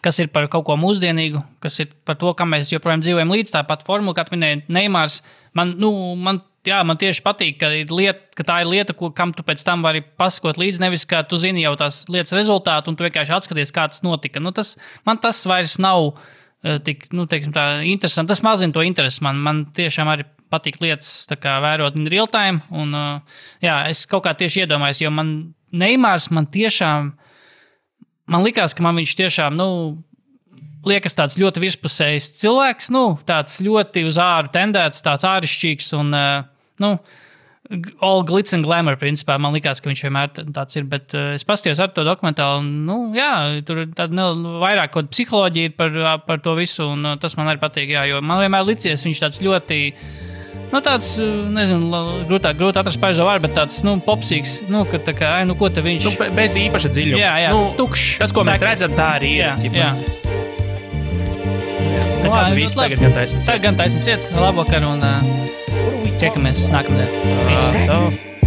kas ir par kaut ko mūsdienīgu, kas ir par to, kam mēs joprojām dzīvojam līdz tāpat formula, kā minēja Neimārs. Man tieši patīk, ka tā ir lieta, kam tu pēc tam vari pasakot līdzi, nevis kā tu zini jau tās lietas rezultātu, un tu vienkārši atskaties, kā tas notika. Man tas vairs nav tik, teiksim tā, interesanti. Tas mazina to interesi. Man tiešām arī patīk lietas tā kā vērot in real time, un es kaut kā tieši iedomājos, jo Neimārs man likās, ka man viņš tiešām, liekas tāds ļoti virspusējs cilvēks, tāds ļoti uz āru tendēts, tāds ārišķīgs un, all glitz and glamour, principā. Man likās, ka viņš vienmēr tāds ir, bet es paskatījos ar to dokumentālu, un, tur tāda vairāk kaut psiholoģija ir par to visu, un tas man arī patīk, jo man vienmēr licies viņš tāds ļoti, tāds, nezinu, grūti atrast pareizo vārdu, bet tāds, popsīgs, ka tā kā, ko te viņš... Bez īpaša dziļuma. Jā, tukšs. Tas, ko mēs redzam, tā arī ir. Jā. Tā kā viss tagad gan taisam ciet. Tagad gan taisam ciet. Labvakar un tiekamies nākamdien. Practice.